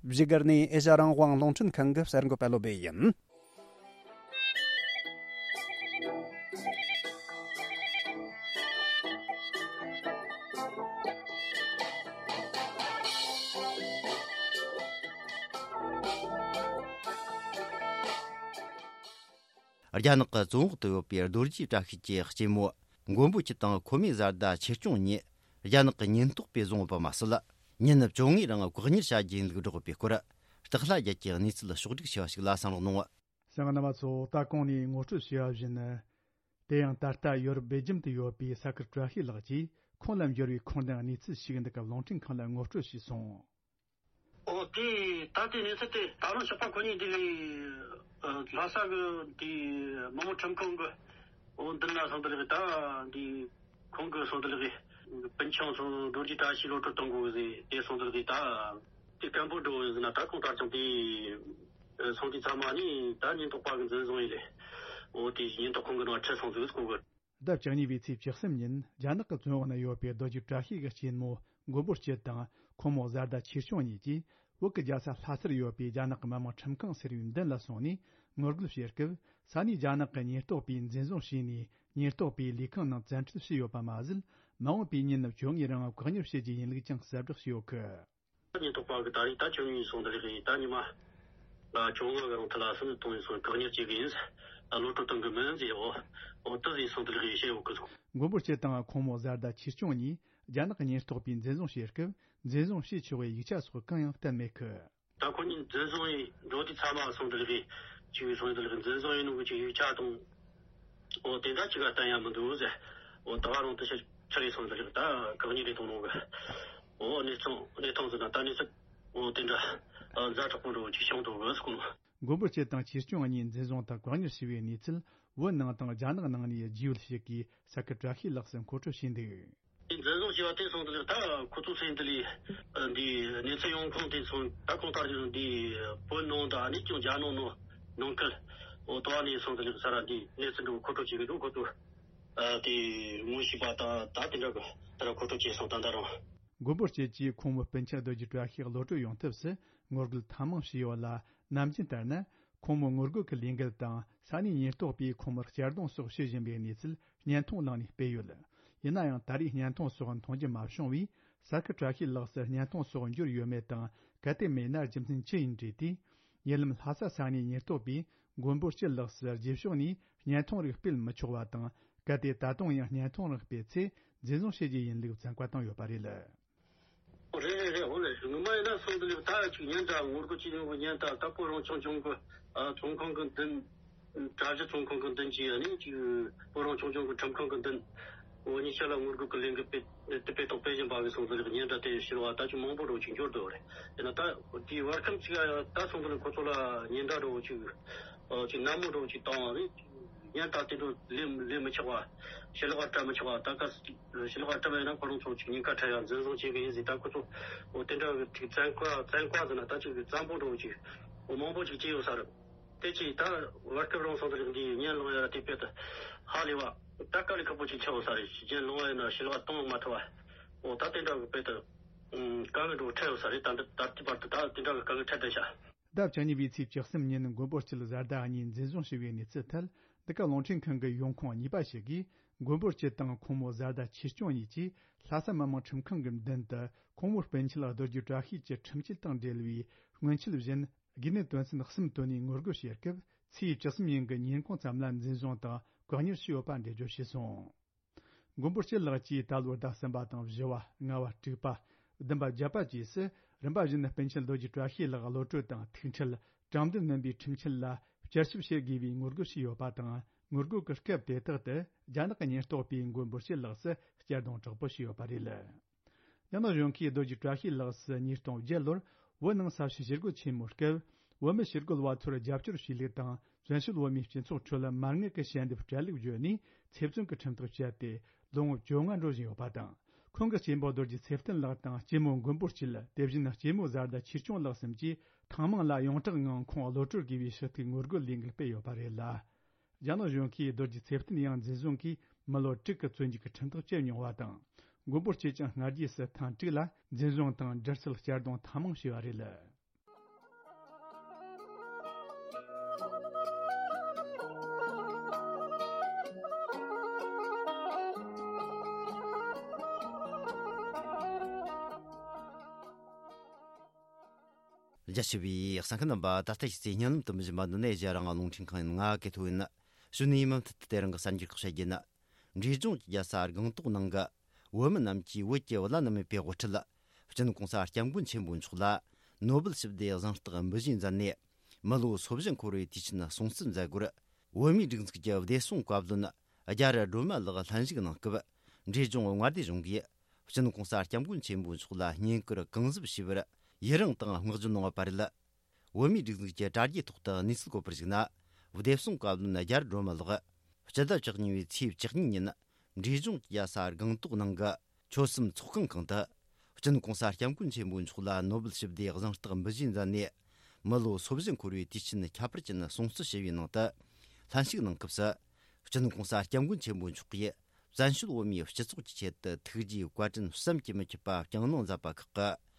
བཞུགས་སྒར་ནས་ཨེ་ཤ་རང་དབང་རླུང་འཕྲིན་ཁང་གི་གསར་འགོད་པ་བློ་བྷེ་ཡིན། རྒྱ་ནག་གི་བཙོན་འོག་ཏུ་ཡོད་པའི་རྡོ་རྗེ་བཀྲ་ཤིས་ཀྱི་གཅེན་མོ་མགོན་པོ་ཁྱི་དང་ཁོ་མོའི་བཟའ་ཟླ་ཆེ་ཆུང་གཉིས་རྒྱ་ནག་གི་ཉེན་རྟོག་པས་བཟུང་ཡོད་པ་མ་ཟད། ཉིན་བཅོ་ལྔའི་རིང་བཀག་ཉར་བྱ་རྒྱུའི་ལུགས་སྒྲོག་པའི་སྐོར། སྟག་ལྷ་རྒྱལ་གྱིས་གནས་ཚུལ་ཕྱོགས་བསྒྲིགས་བྱས་པ་ཞིག་ལ་གསན་རོགས་གནང་། ལྟ་ག་རྣམ་པ་ཚོ། ད་གོང་ནས་ངོ་སྤྲོད་བྱས་པ་བཞིན། དེ་ཡང་ད་ལྟ་ཡོ་རོབ་སྦེལ་ཇམ་དུ་ཡོད་པའི་ས་ཁུལ་བཀྲ་ཤིས་ལགས་ཀྱིས་ཁོང་ལ་འབྱོར་བའི་ཁུངས་ལྡན་གནས་ཚུལ་ཞིག་འདི་ག་རླུང་འཕྲིན་ཁང་ལ་ངོ་སྤྲོད་བྱས་སོང་། ཨོ་དེ་ད་ལྟའི་གནས་ཚུལ་དེ་ད་རུང་ཞོགས་པ་ཁོ་གཉིས་འདི་ལས་ལྷ་ས་གི་དེ་མི་དམངས་ཁྲིམས་ཁང་གི་འོ་འདི་ན་སོང་དེ་ལས་ད་འདི་ཁོང་གི་སོང་དེ་ལས་སྤུན་ཆུང་ཚོ་རྡོ་རྗེ་བཀྲ་ཤིས་གློད་གྲོལ་གཏོང་དགོས་ཟེར་དེ་སོང་དེ་ལས་ད་དེ་སྐད་འབོད་འགྲོ་ཟེར་ན། ད་ཁོང་ད་རུང་དེ་སོང་དེ་ཚང་མ་ནི་ད་ཉེན་རྟོག་པ་གི་འཛིན་བཟུང་ཡིན་ལས། འོ་དེ་ཉེན་རྟོག་ཁང་གི་ནང་ཁྲིད་སོང་ཟིག་ཁོང་གི། ཟླ་བཅུ་གཉིས་པའི་ཚེས་བཅུ་གསུམ་ཉིན་རྒྱ་ནག་གི་བཙོན་འོག་ན་ཡོད་པའི་རྡོ་རྗེ་བཀྲ་ཤིས་ཀྱི་གཅེན་མོ་མགོན་པོ་སྐྱིད་དང་ཁོང་མོ་བཟའ་ཟླ་ཆེ་ཆུང་གཉིས་ཀྱིས་བོད་ཀྱི་རྒྱལ་ས་ལྷ་སར་ཡོད་པའི་རྒྱ་ནག་གི་མི་དམངས་ཁྲིམས་ཁང་ཟེར་བའི་མདུན་ལ་སོང་ནས་ངོ་རྒོལ་བྱེད་སྐབས། ས་གནས་རྒྱ་ནག་གི་ཉེན་རྟོག་པས་འཛིན་བཟུང་བྱས་ནས་ཉེན་རྟོག་པའི་ལས་ཁང་ནང་བཙན་ཁྲིད་བྱས་ཡོད་པ་མ་ཟད། མ་འོངས་པའི་ཉིན་བཅོ་ལྔའི་རིང་བཀག་ཉར་བྱེད་རྒྱུའི་ཡིན་ལུགས་ཀྱང་གསལ་བསྒྲགས་བྱས་ཡོད་གི། ཉེན་རྟོག་པ་གི་ད་རེས་ད་བཅོ་ལྔ་ཡིན་སོང་དེ་རེད། ད་ཉི་མ་ལ་བཅོ་ལྔ་གི་རིང་ཐ་ལ་སུ་ནི་གཏོང་ཡིན་སོང་བཀག་ཉར་བྱེད་གི་ཡིན། ལོ་ཏོ་གཏོང་གི་མིན་ཟེར། འོ་འོ་དེ་ཡིན་སོང་དེ་རེད་བཤད་ཡོད་གི། མགོན་པོ་སྐྱིད་དང་ཁོང་མོ་བཟའ་ཟླ་ཆེ་ཆུང་གཉིས་རྒྱ་ནག་གི་ཉེན་རྟོག་པས་འཛིན་བཟུང་བྱེད་སྐབས་འཛིན་བཟུང་བྱས་ཆོག་པའི་ཡིག་ཆ་སོགས་གང་ཡང་བསྟན་མེད་གི། ད་ཁོ་གཉིས་འཛིན་བཟུང་ཡིན་འགྲོ་དུས་ཚང་མ་སོང་དེ་ལས་ཅིག་སོང་དེ་ལས་འཛིན་བཟུང་ཡིན་ནོ་གི་ཅིག་ཡིག་ཆ་དང་། འོ་དེ་འདྲ་ཅིག་ག་བསྟན་ཡ་མི་འདུག་ཟེར། འོ་ད་བ་རང་དུ་ཤ་ཁྲ་རེ་སོང་དེ་ལས་ད་གང་ཉིད་རེ་གཏོང་ནོ་གི། འོ་གནས་ཚང་གནས་སྟངས་ཟེར་ན་ད་གནས་ཚུལ་འོ་དེ་འདྲ་ཛ་དྲག་པོ་འགྲོ་ཅིག་བྱུང་འདུག་གི་ཟེར་གོ་ནོ། མགོན་པོ་སྐྱིད་དང་ཆེ་ཆུང་གཉིས་འཛིན་བཟུང་དང་བཀག་ཉར་བྱས་པའི་གནས་ཚུལ་བོད་ནང་དང་རྒྱ་ནག་ནང་ནས་རྒྱུས་ཡོད་ཞིག་གིས་ས་ཁུལ་བཀྲ་ཤིས་ལགས་སུ་མཁོ་སྤྲོད་བྱས་འདུག། འཛིན་བཟུང་བྱས་པ་དེ་སོང་དུས་ད་ཁོ་ཚོ་སེམས་འདི་ལས་འདི་གནས་ཚུལ་ཡོང་ཁུངས་དེ་སོང་ད་གང་ལྟར་ཀྱང་འདི་བོད་ནང་དང་ཨ་ནི་ཀྱང་རྒྱ་ནག་ནང་ནང་ཁུལ་འོ་དོ་ནས་སོང་དུས་ས་ར་འདི་གནས་ཚུལ་འདི་མཁོ་སྤྲོད་བྱེད་ཀྱི་འདུག་ཁོ་ཚོ་དེ་ངོ་ཤེས་པ་དང་ད་དེ་འདྲ་གི་ད་ར་མཁོ་སྤྲོད་བྱས་སོང་ད་ད་རུང་། མགོན་པོ་སྐྱིད་ཀྱིས་ཁོང་མོ་སྤུན་མཆེད་རྡོ་རྗེ་བཀྲ་ཤིས་གློད་གྲོལ་ཡོང་ཐབས་སུ་ངོ་རྒོལ་ཐེངས་མང་བྱས་ཡོད་ལ། ནམ་རྒྱུན་ལྟར་ན། ཁོང་མོ་ངོ་རྒོལ་གྱི་ལས་འགུལ་དང་ས་གནས་ཉེན་རྟོག་པས་ཁོང་མོར་གཅར་རྡུང་སོགས་བྱེད་བཞིན་པའི་གནས་ཚུལ་བརྙན་ཐུང་བླངས་ནས་སྤེལ་ཡོད། ཡིན་ན་ཡང་ད་རེས་བརྙན་ཐུང་སོགས་མཐོང་རྒྱུ་མ་བྱུང་བས། ས་ཁུལ་བཀྲ་ཤིས་ལགས་སུ་བརྙན་ཐུང་སོགས་འབྱོར་ཡོད་མེད་དང་། གལ་ཏེ་མེད་ན་རྒྱུ་མཚན་ཅི་ཡིན་དྲིས་ཏེ། ཉེ་ལམ་ལྷ་ས་ས་གནས་ཉེན་རྟོག་པས་མགོན་པོ་སྐྱིད་ལགས་སུ་རྗེས་ཕྱོགས་ནས་བརྙན་ཐུང་རིགས་སྤེལ་མི་ཆོག་པ་དང་། གལ་ཏེ་ད་དུང་ཡང་བརྙན་ཐུང་རིགས་སྤེལ་ཚེ་འཛིན་བཟུང་བྱེད་རྒྱུ་ཡིན་ལུགས་བཙན་བཀའ་བཏང་ཡོད་པ་རེད། རེད་རེད་རེད། འོ་ལེ་ངོ་མ་ཡིན་ན་སོང་དུས་ད་ཅིག་ཉིན་འདྲ་ངོ་རྒོལ་བྱེད་མྱོང་གི་ཉིན་ད་ད་བོད་རང་སྐྱོང་ལྗོངས་གི་ཨ་ཚོང་ཁང་གི་མདུན། གྲྭ་བཞི་ཚོང་ཁང་གི་མདུན་གྱི་ཨ་ནི་ཅིག་བོད་རང་སྐྱོང་ལྗོངས་གི་ཁྲིམས་ཁང་གི་མདུན། འོ་ཉི་ཤུ་ལ་ངོ་རྒོལ་གི་ལས་འགུལ་སྤེལ་དེ་སྤེལ་ཐོག་སྤེལ་བཞིན་པ་གི་སོང་དུས་ཉིན་འདྲ་དེ་ཕྱིར་བ་ད་ཅིག་མང་པོ་འགྲོ་ཅིག་འབྱོར་འདུག་རེད། ཡིན་ན་ད་དེའི་བར་ཁམས་ཅིག་ད་སོང་དུས་ཁོ་ཚོ་ལ་ཉིན་འདྲ་འགྲོ་ཅིག་ཨ་ཅིག་ནན་མོ་འགྲོ་ཅིག་བཏང་བ་རེད། ཉན་ད་དེ་འདྲ་ལས་ལས་མི་ཆོག་པ། ཞི་ལུ་ག་སྤྲད་མི་ཆོག་པ། ད་ག་ཞི་ལུ་ག་སྤྲད་པ་ཡིན་ན་ཁོ་རང་ཚོ་ཅིག་ཉེན་ཁ་འཕྲད་ཡ་འཛིན་བཟུང་བྱེད་གི་ཡིན་ཟེར། ད་ཁོ་ཚོ་འོ་དེ་འདྲ་གི་ཅིག་བཙན་བཀའ་བཙན་བཀའ་ཟེར་ན་ད་ཅིག་གི་བཙན་པོ་འདྲ་བོ་ཅིག་འོ་མང་པོ་ཅིག་བྱས་ཡོད་ས་རེད། དེ་ཅིག་ད་བར་སྐབས་རང་སོང་དུ་འདི་ཉན་ལོང་ཡ་དེ་དཔེ་དུ་ཧ་ལས་བ་ད་དཀའ་ལས་ཁག་པོ་ཅིག་ཆགས་ཡོད་ས་རེད། ཉན་ལོང་བ་ཡིན་ན་ཞི་ལུ་ག་གཏོང་མ་ཐུབ་བ། འོ་ད་དེ་འདྲ་གི་དཔེ་དུ་དཀའ་ངལ་འདྲ་བོ་འཕྲད་ཡོད་ས་རེད། ད་འདི་ད་ལྟའི་བར་དུ་ད་དེ་འདྲ་གི་དཀའ་ངལ་འཕྲད་བསྡད་ཤག་ཟླ་བཅུ་གཉིས་པའི་ཚེས་བཅུ་གསུམ་ཉིན་མགོན་པོ་སྐྱིད་བཟའ་ཟླ་གཉིས་འཛིན་བཟུང་བྱས་པའི་གནས་ཚུལ་ཐད། འདི་ག་རླུང་འཕྲིན་ཁང་གི་ཡོང་ཁུངས་གཉིས་པ་ཞིག་གིས། མགོན་པོ་སྐྱིད་དང་ཁོང་མོ་བཟའ་ཟླ་ཆེ་ཆུང་གཉིས་ཀྱིས་ལྷ་ས་མི་དམངས་ཁྲིམས་ཁང་གི་མདུན་དུ་ཁོང་མོའི་སྤུན་མཆེད་རྡོ་རྗེ་བཀྲ་ཤིས་ཀྱི་ཁྲིམས་ཆད་དང་འབྲེལ་བའི་སྔོན་ཆད་བཞིན་དགོས་ནད་དོན་ཚན་གསུམ་བཏོན་ནས་ངོ་རྒོལ་བྱེད་སྐབས། ཚེས་བཅུ་གསུམ་ཉིན་གྱི་ཉིན་གུང་ཙམ་ལ་འཛིན་བཟུང་དང་བཀག་ཉར་བྱས་ཡོད་པ་འགྲེལ་བརྗོད་བྱས་སོང་། མགོན་པོ་སྐྱིད་ལགས་ཀྱིས་ད་ལོའི་ཟླ་གསུམ་པ་དང་བཞི་བ། ལྔ་བ། དྲུག་པ། བདུན་པ། བརྒྱད་པ་བཅས་སུ་རིམ་པ་བཞིན་སྤུན་མཆེད་རྡོ་རྗེ་བཀྲ་ཤིས་ལགས་གློད་གྲོལ་དང་ཐུག་འཕྲད། དྲང་བདེན་སྨིན་པའི་ཁྲིམས་ཆད་ལ་བསྐྱར་ཞིབ་བྱེད་དགོས་པའི་ངོ་རྒོལ་བྱས་ཡོད་པ་དང་། ངོ་རྒོལ་གྱི་སྐབས་དེ་དག་ཏུ་རྒྱ་ནག་གི་ཉེན་རྟོག་པས་མགོན་པོ་སྐྱིད་ལགས་སུ་གཅར་རྡུང་དྲག་པོ་བྱས་ཡོད་པ་རེད། རྒྱ་ནག་གཞུང་གིས་རྡོ་རྗེ་བཀྲ་ཤིས་ལགས་སུ་ཉིས་སྟོང་བརྒྱད་ལོར་བོད་ནང་ས་བྱི་ཞི་རྒོལ་ཆེན་མོའི་སྐབས། བོད་མི་ཞི་རྒོལ་བ་ཚོར་རྒྱབ་སྐྱོར་བྱས་ལུགས་དང་། བཙན་བྱོལ་བོད་མིའི་སྤྱི་ཚོགས་ཁྲོད་མ་དངུལ་གྱི་ཞལ་འདེབས་སྤྲད་ལུགས་བརྗོད་ནས་ཚེ་བཙོན་གྱི་ཁྲིམས་ཐག་བཅད་དེ་ལོ་ངོ་བཅོ་ལྔ་འགྲོ་བཞིན་ཡོད་པ་དང་། ཁོང་གི་གཅེན་པོ་རྡོ་རྗེ་ཚེ་བརྟན་ལགས་དང་གཅེན་མོ་མགོན་པོ་སྐྱིད། དེ་བཞིན་གཅེན་མོ་བཟའ་ཟླ་ཆེ་ཆུང་ལགས་གསུམ་གྱིས་ཐེངས་མང་ལ་ཡོངས་གྲགས་ངང་ཁོང་གློད་གྲོལ་དགོས་པའི་ཞུ་གཏུག་ངོ་རྒོལ་ལས་འགུལ་སྤེལ་ཡོད་པ་རེད་ལ། རྒྱ་ནག་གཞུང་གིས་རྡོ་རྗེ་ཚེ་བརྟན་ཡང་འཛིན་བཟུང་གིས་མི་ལོ་དྲུག་གི་བཙོན་འཇུག་གི་ཁྲིམས་ཐག་བཅད་མྱོང་བ་དང་། མགོན་པོ་སྐྱིད་ཀྱང་སྔ་རྗེས་སུ་ཐེངས་དྲུག་ལ་འཛིན་བཟུང་དང་། སྒྲིལ་སྲོལ་གཅར་རྡུང་ཐེངས་མང་བྱས་པ་རེད། རྒྱ་ཆེ་བའི་གསན་མཁན་རྣམ་པ། ད་ལྟ་ཞིག་ཚེ་ཉིན་ལམ་དུ་མི་བཞིན་པ་འདི་ནས་རྒྱ་རང་ལུང་འཕྲིན་ཁང་ཡིན། ང་གི་ཐོ་ཡིན། གཞོན་ནུའི་མུ་མཐུད་དུ་དེ་རིང་གི་གསར་འགྱུར་ཁག་བཤད་རྒྱུ་ཡིན། འབྲས་ལྗོངས་ཀྱི་རྒྱལ་ས་སྒང་ཏོག་ནང་གི་བོད་མི་རྣམས་ཀྱིས་བོད་ཀྱི་བླ་ན་མེད་པའི་དབུ་ཁྲིད། སྤྱི་ནོར་གོང་ས་སྐྱབས་མགོན་ཆེན་པོ་མཆོག་ལ་ནོ་སྦེལ་ཞི་བདེའི་གཟེངས་རྟགས་འབུལ་བཞེས་མཛད་ནས། མི་ལོ་སོ་བཞི་འཁོར་བའི་དུས་ཆེན་སྲུང་བརྩི་མཛད་སྒོར། བོད་མིའི་སྒྲིག་འཛུགས་ཀྱི་བདེ་སྲུང་བཀའ་བློན་རྒྱ་རི་སྒྲོལ་མ་ལགས་ལྷན་ཞུགས་གནང་སྐབས། འབྲས་ལྗོངས་མངའ་སྡེ་གཞུང་གིས་སྤྱི་ནོར་༸གོང་ས་༸སྐྱབས་མགོན་ཆེན་པོ་མཆོག་ལ་བསྙེན་བཀུར་གང་ཟབ་ཞུས་པར་ཡི་རངས་དང་བསྔགས་བརྗོད་གནང་བ་རེད། བོད་མིའི་སྒྲིག་འཛུགས་ཀྱི་དྲ་རྒྱའི་ཐོག་ཏུ་གནས་ཚུལ་བཀོད་པར་གཞིགས་ན། བདེ་སྲུང་བཀའ་བློན་རྒྱ་རི་སྒྲོལ་མ་ལགས་སྤྱི་ཟླ་བཅུ་གཉིས་པའི་ཚེས་བཅུ་གཉིས་ཉིན། འབྲས་ལྗོངས་ཀྱི་རྒྱལ་ས་སྒང་ཏོག་ནང་གི་ཆོལ་གསུམ་ཚོགས་ཁང་གང་དུ། སྤྱི་ནོར་༸གོང་ས་༸སྐྱབས་མགོན་ཆེན་པོ་མཆོག་ལ་ནོ་སྦེལ་ཞི་བདེའི་གཟེངས་རྟགས་འབུལ་བཞེས་མཛད་ནས། མི་ལོ་སོ་བཞི་འཁོར་བའི་དུས་ཆེན་ཁྱད་པར་ཅན་སྲུང་བརྩི་ཞུ་བའི་ནང་དུ། ལྷན་ཞུགས་གནང་སྐབས་སུ། སྤྱི་ནོར་༸གོང་ས་༸སྐྱབས་མགོན་ཆེན་པོ་མཆོག་གིས། བཙན་བྱོལ་བོད་མིའི་སྤྱི་ཚོགས་ཀྱི་ཆེད་དུ་ཐུགས་རྗེའི་བཀའ་དྲིན་བསམ་གྱིས་མི་ཁྱབ་པ་བསྐྱངས་གནང་མཛད་པ་ཁག་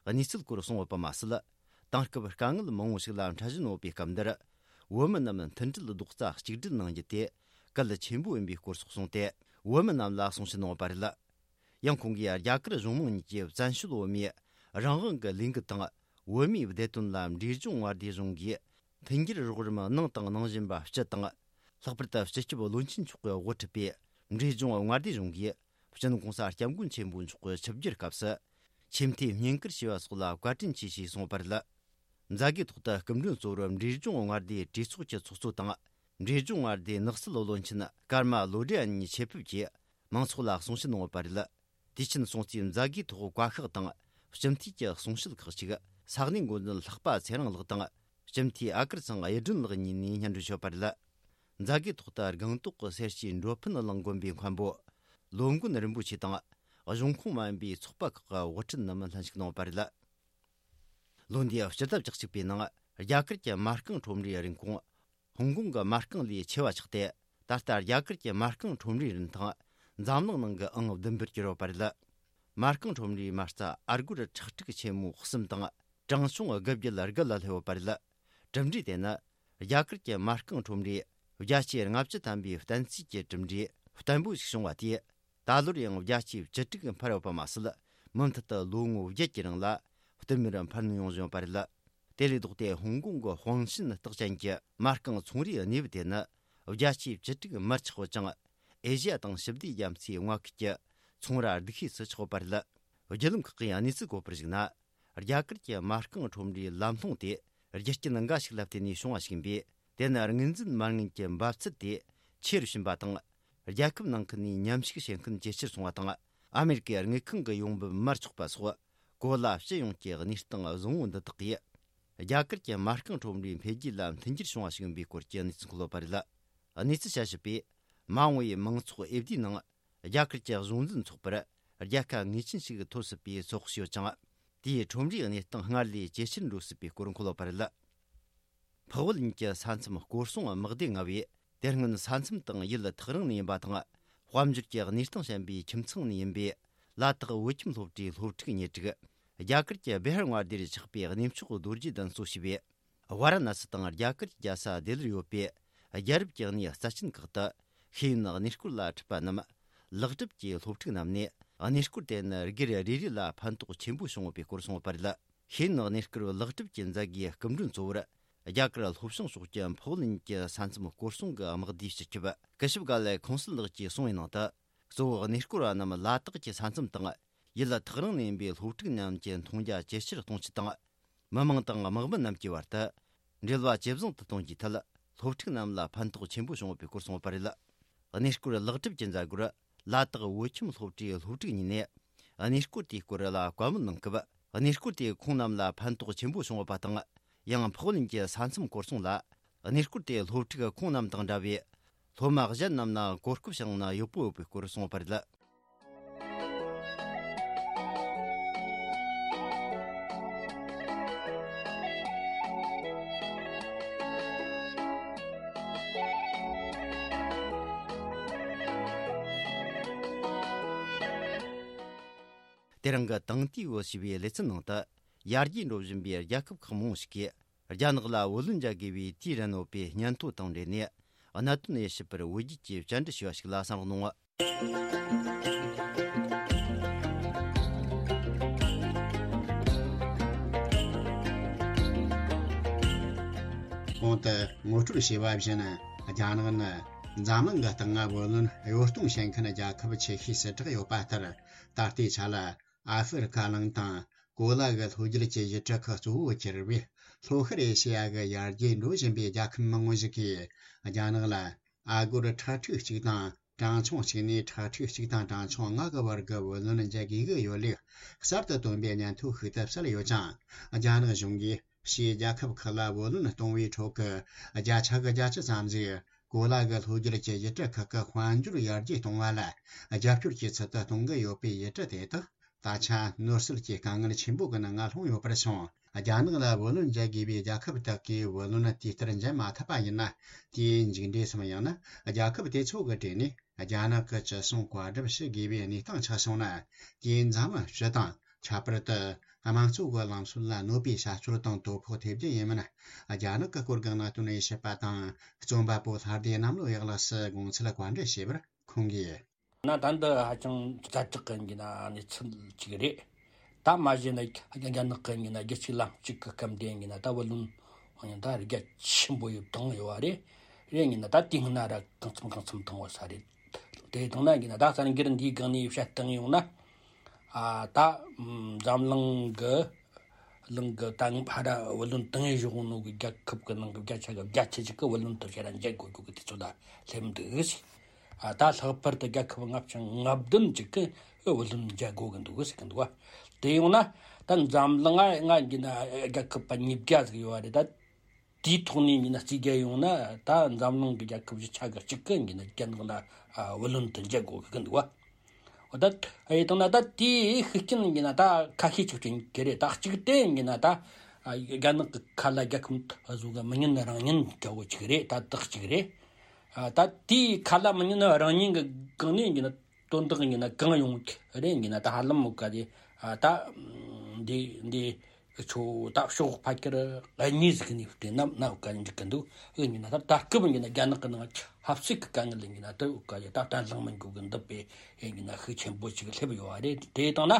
གི་གནས་ཚུལ་སྐོར་གསུངས་ཡོད་པ་མ་ཟད། དེང་སྐབས་དཀའ་ངལ་མང་བོ་ཞིག་ལ་འཕྲད་བཞིན་ཡོད་པའི་སྐབས་འདིར། བོད་མི་རྣམས་མཐུན་སྒྲིལ་རྡོག་རྩ་གཅིག་སྒྲིལ་གནང་རྒྱུ་དེ་གལ་ཆེན་པོ་ཡིན་པའི་སྐོར་སོགས་གསུངས་ཏེ། བོད་མི་རྣམས་ལ་གསུང་བཤད་གནང་ཡོད་པ་རེད། ཡང་ཁོང་གིས་རྒྱ་གར་གཞུང་མང་གཉིས་ཀྱིས་བཙན་བྱོལ་བོད་མིའི་རང་དབང་གི་ལས་འགུལ་དང་། བོད་མིའི་བདེ་དོན་ལ་འབྲས་ལྗོངས་མངའ་སྡེ་གཞུང་གིས་མཐུན་འགྱུར་རོགས་རམ་གནང་དང་གནང་བཞིན་པ་སྤྱི་དང་། ལྷག་པར་དུ་སྤྱི་ཁྱབ་བློན་ཆེན་མཆོག་གིས་དབུ་ཁྲིད་པའི་འབྲས་ལྗོངས་མངའ་སྡེ་གཞུང་གིས་སྤྱི་ནོར་༸གོང་ས་༸སྐྱབས་མགོན་ཆེན་པོ་མཆོག་གི་ཆིབས་བསྒྱུར་སྐབས་སུ། ཆེས་མཐོའི་བསྙེན་བཀུར་ཞུས་པ་སོགས་ལ་བཀའ་དྲིན་ཆེ་ཞེས་གསུངས་པ་རེད། མཛད་སྒོའི་ཐོག་ཏུ་སྐུ་མགྲོན་གཙོ་བོར་འབྲས་ལྗོངས་མངའ་སྡེའི་གྲོས་ཚོགས་ཀྱི་ཚོགས་གཙོ་དང་། འབྲས་ལྗོངས་མངའ་སྡེའི་ནགས་སྲིད་བློན་ཆེན་ཀརྨ་བློ་བྲེ་གཉིས་ཆེད་ཕེབས་ཀྱིས་མང་ཚོགས་ལ་གསུང་བཤད་གནང་ཡོད་པ་རེད། དུས་ཆེན་སྲུང་བརྩིའི་མཛད་སྒོའི་ཐོག་བཀའ་ཤག་དང་སྤྱི་འཐུས་ཀྱི་གསུང་བཤད་ཁག་ཅིག་ས་གནས་འགོ་འཛིན་ལྷག་པ་ཚེ་རིང་ལགས་དང་སྤྱི་འཐུས་ཨ་ཀར་ཚང་གཡུ་སྒྲོན་ལགས་གཉིས་ནས་སྙན་སྒྲོན་ཞུས་པ་རེད། མཛད་སྒོའི་ཐོག་ཏུ་སྒང་ཏོག་གི་སེར་སྐྱའི་འགྲོ་ཕན་གླིང་དགོན་པའི་མཁན་པོ་ལོ་མགོན་རིན་པོ་ཆེ་དང་། གཞུང་ཁོངས་མ་ཡིན་པའི་ཚོགས་པ་ཁག་གི་དབུ་ཁྲིད་རྣམས་ལྷན་ཞུགས་གནང་བ་རེད། ལོ་འདིའི་སྤྱི་ཟླ་བཅུ་གཅིག་པའི་ནང་རྒྱ་གར་གྱི་མ་རྐང་ཁྲོམ་རའི་རིན་གོང་ཧོང་ཀོང་གི་མ་རྐང་ལས་ཆེ་བ་ཆགས་ཏེ། ད་ལྟ་རྒྱ་གར་གྱི་མ་རྐང་ཁྲོམ་རའི་རིན་ཐང་འཛམ་གླིང་ནང་གི་ཨང་བདུན་པར་གྱུར་ཡོད་པ་རེད། མ་རྐང་ཁྲོམ་རའི་མ་རྩ་ཨ་སྒོར་ཁྲག་ཁྲིག་ཆེན་མོ་གསུམ་དང་གྲངས་ཆུང་དགུ་བརྒྱ་དགུ་ལ་སླེབས་ཡོད་པ་རེད། གྲུབ་འབྲས་དེ་ནི་རྒྱ་གར་གྱི་མ་རྐང་ཁྲོམ་རའི་བརྒྱ་ཆའི་ལྔ་བཅུ་ཐམ་པའི་བསྟན་རྩིས་ཀྱི་གྲུབ་འབྲས་བརྟན་པོ་ཞིག་བྱུང་བ་དེས། ད་ལོར་ཡང་བརྒྱ་ཆའི་བཅུ་དྲུག་འཕར་ཡོད་པ་མ་ཟད། མུ་མཐུད་དུ་ལོ་ངོ་བརྒྱད་ཀྱི་རིང་ལ་བསྟུད་མར་འཕར་སྣོན་ཡོང་བཞིན་ཡོད་པ་རེད། དེ་ལས་ལྡོག་སྟེ་ཧོང་ཀོང་གི་ཧུང་ཤིན་རྟགས་ཅན་གྱི་མ་རྐང་ཚོང་རའི་གནས་བབ་དེ་ནི་བརྒྱ་ཆའི་བཅུ་དྲུག་མར་ཆག་ཡོད་ཅིང་། ཨེ་ཤི་ཡ་དང་ཞི་བདེ་རྒྱ་མཚོའི་མངའ་ཁུལ་གྱི་ཚོང་ར་སྡུག་ཤོས་སུ་ཆགས་ཡོད་པ་རེད། བརྒྱུད་ལམ་ཁག་གིས་གནས་ཚུལ་བཀོད་པར་གཞིགས་ན། རྒྱ་གར་གྱི་མ་རྐང་ཁྲོམ་རའི་ལམ་ལྷོང་དེ་རྒྱུ་རྐྱེན་འགའ་ཞིག་ལ་བརྟེན་ནས་བྱུང་བ་ཞིག་ཡིན་པས། དེ་ནི་དངོས་འཛིན་མ་དངུལ་གྱི་འབབ་ཚད་དེ་ཆེ་རུ་ཕྱིན་པ་དང་། རྒྱལ་ཁབ་ནང་ཁུལ་ནས་མཉམ་ཞུགས་བྱེད་མཁན་ཇེ་ཆེར་སོང་བ་དང་། ཨ་མེ་རི་ཀའི་དངུལ་ཁང་གི་ཡོང་འབབ་མར་ཆག་པ་སོགས། གོ་ལ་སྤྱི་ཡོངས་ཀྱི་གནས་སྟངས་བཟང་བོ་འདི་དག་གིས། རྒྱ་གར་གྱི་མ་རྐང་ཁྲོམ་རའི་འཕེལ་རྒྱས་ལ་མཐུན་འགྱུར་བྱུང་བ་ཞིག་ཡིན་པའི་སྐོར་གྱི་གནས་ཚུལ་འཁོད་ཡོད་པ་རེད། གནས་ཚུལ་དཔྱད་ཞིབ་པས། མ་འོངས་པའི་མང་ཚོགས་འོས་བསྡུའི་ནང་། རྒྱ་གར་གྱི་གཞུང་འཛིན་ཚོགས་པར་རྒྱལ་ཁ་ངེས་ཅན་ཞིག་ཐོབ་སྲིད་པའི་ཚོད་དཔག་བྱས་ཡོད་ཅིང་། དེས་ཁྲོམ་རའི་གནས་སྟངས་སྔར་ལས་ཇེ་ཆེར་འགྲོ་སྲིད་པའི་སྐོར་འཁོད་ཡོད་པ་རེད། འཕགས་བོད་གཉིས་ཀྱི་ས་མཚམས་སྐོར་སྲུང་དམག་སྡེ་ལྔ་བས། དེ་སྔོན་ས་མཚམས་དང་ཡུལ་ཐག་རིང་ནས་ཡིན་པ་དང་། དཔལ་འབྱོར་གྱི་གནས་སྟངས་ཞན་པའི་ཁྱིམ་ཚང་ནས་ཡིན་པའི་ལ་དྭགས་བོད་ཁྱིམ་སློབ་གྲྭའི་སློབ་ཕྲུག་གཉེར་སྒྲིག་རྒྱ་གར་གྱི་བི་ཧར་མངའ་སྡེར་ཆགས་པའི་གནས་མཆོག་རྡོ་རྗེ་གདན་གཙོ་བྱས་པའི་ཝཱ་ར་ཎ་སི་དང་རྒྱ་གར་གྱི་རྒྱལ་ས་ལྡི་ལིར་ཡོད་པའི་རྒྱལ་རབས་ཀྱི་གནས་རྩ་ཆེན་ཁག་ཏུ་ཤེས་ཡོན་གནས་སྐོར་ལ་ཁྲིད་པ་རྣམས་ལེགས་གྲུབ་ཀྱིས་སློབ་ཕྲུག་རྣམས་ནས་གནས་སྐོར་དེ་ནི་སྒེར་རེ་རེ་ལ་ཕན་ཐོགས་ཆེན་པོ་བྱུང་ཡོད་པའི་སྐོར་གསུངས་ཡོད་པ་རེད། ཤེས་ཡོན་གནས་སྐོར་ལེགས་གྲུབ་ཀྱི་མཛད་སྒོའི་སྐུ་མགྲོན་གཙོ་བོར་རྒྱ་གར་ལྷོ་བྱང་ཕྱོགས་ཀྱི་འཕགས་བོད་གཉིས་ཀྱི་ས་མཚམས་སྐོར་སྲུང་གི་དམག་སྡེའི་སྤྱི་ཁྱབ་སྐུ་ཞབས་ག་ལེ་ཁོང་སིལ་ལགས་ཀྱིས་གསུངས་པའི་ནང་དུ། གཙོ་བོ་གནས་སྐོར་བ་རྣམས་ལ་དྭགས་ཀྱི་ས་མཚམས་དང་ཡུལ་ཐག་རིང་ནས་ཡིན་པའི་སློབ་ཕྲུག་རྣམས་ཀྱི་མཐོང་རྒྱ་ཇེ་ཆེར་གཏོང་ཆེད་དང་། མི་མང་དང་དམག་མི་རྣམས་ཀྱི་བར་དུ་འབྲེལ་བ་ཇེ་བཟང་དུ་གཏོང་རྒྱུའི་ཐད། སློབ་ཕྲུག་རྣམས་ལ་ཕན་ཐོགས་ཆེན་པོ་བྱུང་ཡོད་པའི་སྐོར་གསུངས་ཡོད་པ་རེད། གནས་སྐོར་ལེགས་གྲུབ་ཀྱི་མཛད་སྒོར་ལ་དྭགས་བོད་ཁྱིམ་སློབ་གྲྭའི་སློབ་ཕྲུག་གཉིས་ནས་གནས་སྐོར་དེའི་སྐོར་ལ་བཀའ་མོལ་གནང་སྐབས། གནས་སྐོར་དེས་ཁོང་རྣམས་ལ་ཕན་ཐོགས་ཆེན་པོ་བྱུང་ཡོད་པ་དང་། ཡང་འཕགས་བོད་གཉིས་ཀྱི་ས་མཚམས་སྐོར་སྲུང་ལ། གནས་སྐོར་དེ་སློབ་ཕྲུག་ཁོང་རྣམས་དང་འདྲ་བའི་སློབ་མ་གཞན་རྣམས་ལ་གོ་སྐབས་བྱུང་ན་ཡག་པོ་ཡོད་པའི་སྐོར་གསུངས་པ་རེད། དེ་རིང་གི་དེང་དུས་བོད་ཞེས་པའི་ལེ་ཚན་ནང་དུ། ཡར་རྒྱས་འགྲོ་བཞིན་པའི་རྒྱལ་ཁབ་ཁག་མང་པོ་ཞིག་གིས། རྒྱ་ནག་ལ་བུ་ལོན་འཇལ་དགོས་པའི་དུས་རན་ཡོད་པའི་སྙན་ཐོ་དང་འབྲེལ་ནས། གནད་དོན་དབྱེ་ཞིབ་པར་བོད་བརྒྱུད་ཀྱིས་བཅར་འདྲི་ཞུས་པ་ཞིག་ལ་གསན་རོགས་གནང་། གོང་དུ་ངོ་སྤྲོད་བྱས་པ་བཞིན། རྒྱ་ནག་ནི་འཛམ་གླིང་གི་སྟེང་ང་བུ་ལོན་གཡོ་གཏོང་བྱེད་མཁན་རྒྱལ་ཁབ་ཆེ་ཤོས་སུ་གྲགས་ཡོད་པ་ལྟར། ད་ལྟའི་ཆ་ལ་ཨ་ཧྥེ་རི་ཁ་གླིང་དང་། གོ་ལ་གི་ལྷོ་རྒྱུད་ཀྱི་ཡུལ་གྲུ་ཁག་གཙོ་བོ་གྱུར་བའི་ལྷོ་ཤར་ཨེ་ཤེ་ཡ་གི་ཡར་རྒྱས་འགྲོ་བཞིན་པའི་རྒྱལ་ཁབ་མང་བོ་ཞིག་གིས་རྒྱ་ནག་ལ་ཨ་སྒོར་ཁྲི་ཕྲུག་གཅིག་དང་གྲངས་ཆུང་གཅིག་ནས་ཁྲི་ཕྲུག་གཅིག་དང་གྲངས་ཆུང་ལྔ་གི་བར་གྱི་བུ་ལོན་འཇལ་དགོས་ཀྱི་ཡོད་ལུགས་གསར་དུ་བཏོན་པའི་སྙན་ཐོ་ཤིག་ཏུ་གསལ་ཡོད་ཅིང་། རྒྱ་ནག་གཞུང་གིས་ཕྱིའི་རྒྱལ་ཁབ་ཁག་ལ་བུ་ལོན་གཏོང་བའི་ཁྲོད་ཀྱི་བརྒྱ་ཆ་གི་བརྒྱད་ཅུ་ཙམ་ཞིག་གོ་ལ་གི་ལྷོ་རྒྱུད་ཀྱི་ཡུལ་གྲུ་ཁག་གི་དཔལ་འབྱོར་ཡར་རྒྱས་གཏོང་བ་ལ་རྒྱབ་སྐྱོར་གྱི་ཚུལ་དུ་གཏོང་གི་ཡོད་པའི་ཡུལ་གྲུ་དེ་དག་ད་ཆ་ནོར་སྲིད་ཀྱི་དཀའ་ངལ་ཆེན་པོ་གི་ནང་ང་ལྷུང་ཡོད་པར་སོང་། རྒྱ་ནག་ལ་བུ་ལོན་འཇལ་དགོས་པའི་རྒྱལ་ཁབ་དག་གིས་བུ་ལོན་དུས་ལྟར་འཇལ་མ་ཐུབ་པ་ཡིན་ན། དེའི་མཇུག་འབྲས་སམ། ཡང་ན་རྒྱལ་ཁབ་དེ་ཚོ་གི་གྲས་ནས་རྒྱ་ནག་གི་ཅི་གསུང་བཀའ་སྒྲུབ་བྱེད་དགོས་པའི་གནས་སྟངས་ཆགས་སོང་ན། དེས་འཛམ་གླིང་སྤྱི་དང་། ཁྱད་པར་དུ་དམངས་གཙོ་གི་ལམ་སྲོལ་ལ་གནོད་པའི་བྱ་སྤྱོད་དང་དོ་ཕོག་ཐེབས་རྒྱུ་ཡིན་མིན། རྒྱ་ནག་གི་སྐོར་གྱི་གནད་དོན་དཔྱད་པ་དང་རྩོམ་པ་པོ་ལྷ་སྡེ་གནམ་ལོ་ཡག་ལགས་སུ་དགོངས་ཚུལ་བཀའ་འདྲི་ཞུས་པར། ཁོང་གིས། ན་ད་འདི་ཧ་ཅང་ཛ་དྲག་གི་ཡིན་ན་གནས་ཚུལ་ཅིག་རེད། ད་མ་གཞི་ན་རྒྱ་ནག་གི་ཡིན་ན་རྒྱལ་སྤྱིའི་ལམ་ལུགས་ཀྱི་སྐབས་འདི་ཡིན་ན་ད་བུ་ལོན་ཡིན་ད་རྒྱ་ཆེན་པོ་ཡོད་བཏང་ཡོད་བ་རེད། རེད་ཡིན་ན་ད་དེ་སྔ་ན་ར་གང་འཚམ་གང་འཚམ་བཏང་བ་ས་རེད། དེ་བཏང་ན་ཡིན་ན་ད་གསར་འགྱུར་འདིའི་སྒང་ནས་བཤད་བཏང་ཡོང་ན། ཨ་ད་འཛམ་གླིང་གི་གླིང་གི་ད་ཕ་ར་བུ་ལོན་བཏང་ཡས་བཞག་ནོ་གི་རྒྱལ་ཁབ་གི་ནང་གི་བརྒྱ་ཆ་གི་བརྒྱད་ཅུ་ཅིག་གི་བུ་ལོན་དུ་ཁྱེད་རང་འཇལ་དགོས་རྒྱུ་གི་དུས་ཚོད་ལ་སླེབས་འདུག་ཟེར། ཨ་ད་ལྷག་པར་དུ་རྒྱལ་ཁབ་ལྔ་བཅུ་ང་བདུན་ཅིག་གི་བུ་ལོན་འཇལ་དགོས་གི་འདུག་ཟེར་གི་འདུག་བ། དེ་ཡོང་ན་ད་འཛམ་གླིང་ང་ང་གི་ན་རྒྱལ་ཁབ་པ་ཉིས་བརྒྱ་ཟིག་ཡོད་བ་རེད་ད། དེའི་ཐོག་ནས་ཡིན་ན་རྩིས་རྒྱག་ཡོང་ན་ད་འཛམ་གླིང་གི་རྒྱལ་ཁབ་བཞི་ཆ་གི་གཅིག་གི་ཡིན་ན་རྒྱ་ནག་ལ་ཨ་བུ་ལོན་དུ་འཇལ་དགོས་གི་འདུག་བ། འོ་ད་ཨེ་དང་ན་ད་དེའི་ཤུགས་རྐྱེན་ཡིན་ན་ད་ཁ་ཤས་ཅིག་ཅིག་གི་རེད། ད་གཅིག་དེ་ཡིན་ན་ད་ཨ་རྒྱ་ནག་གི་ཁ་ལ་རྒྱལ་ཁབ་བཟོ་གི་མི་ཉན་རང་ཉན་ག་བོ་ཅིག་རེད། ད་དག་ཅིག་རེད། ཨ་ད་དེའི་ཁ་ལ་མི་ཉན་རང་ཉན་གི་སྒང་ནས་ཡིན་ན། དོན་དག་ཡིན་ན་གང་ཡོང་རེད་ཡིན་ན་ད་ཧ་ལམ་མོ་ག་དེ་ད་འདི་འདི་ཆོ་ད་ཕྱོགས་ཕ་ཁྱེར་གཉིས་ཟིག་ནས་བལྟས་ན་ན་ག་འཇིག་གི་འདུག་ཨེ་ཡིན་ན་ད་ད་སྐབས་ཡིན་ན་རྒྱ་ནག་གི་ནང་ཆབ་སྲིད་ཀྱི་དཀའ་ངལ་ཡིན་ན་ད་ག་དེ་ད་བརྟན་ལྷིང་མི་འགྱུར་གི་འདུག་པས་ཨེ་ཡིན་ན་ཤུགས་ཆེན་པོ་ཅིག་སླེབས་ཡོད་བ་རེད། དེ་དང་ན་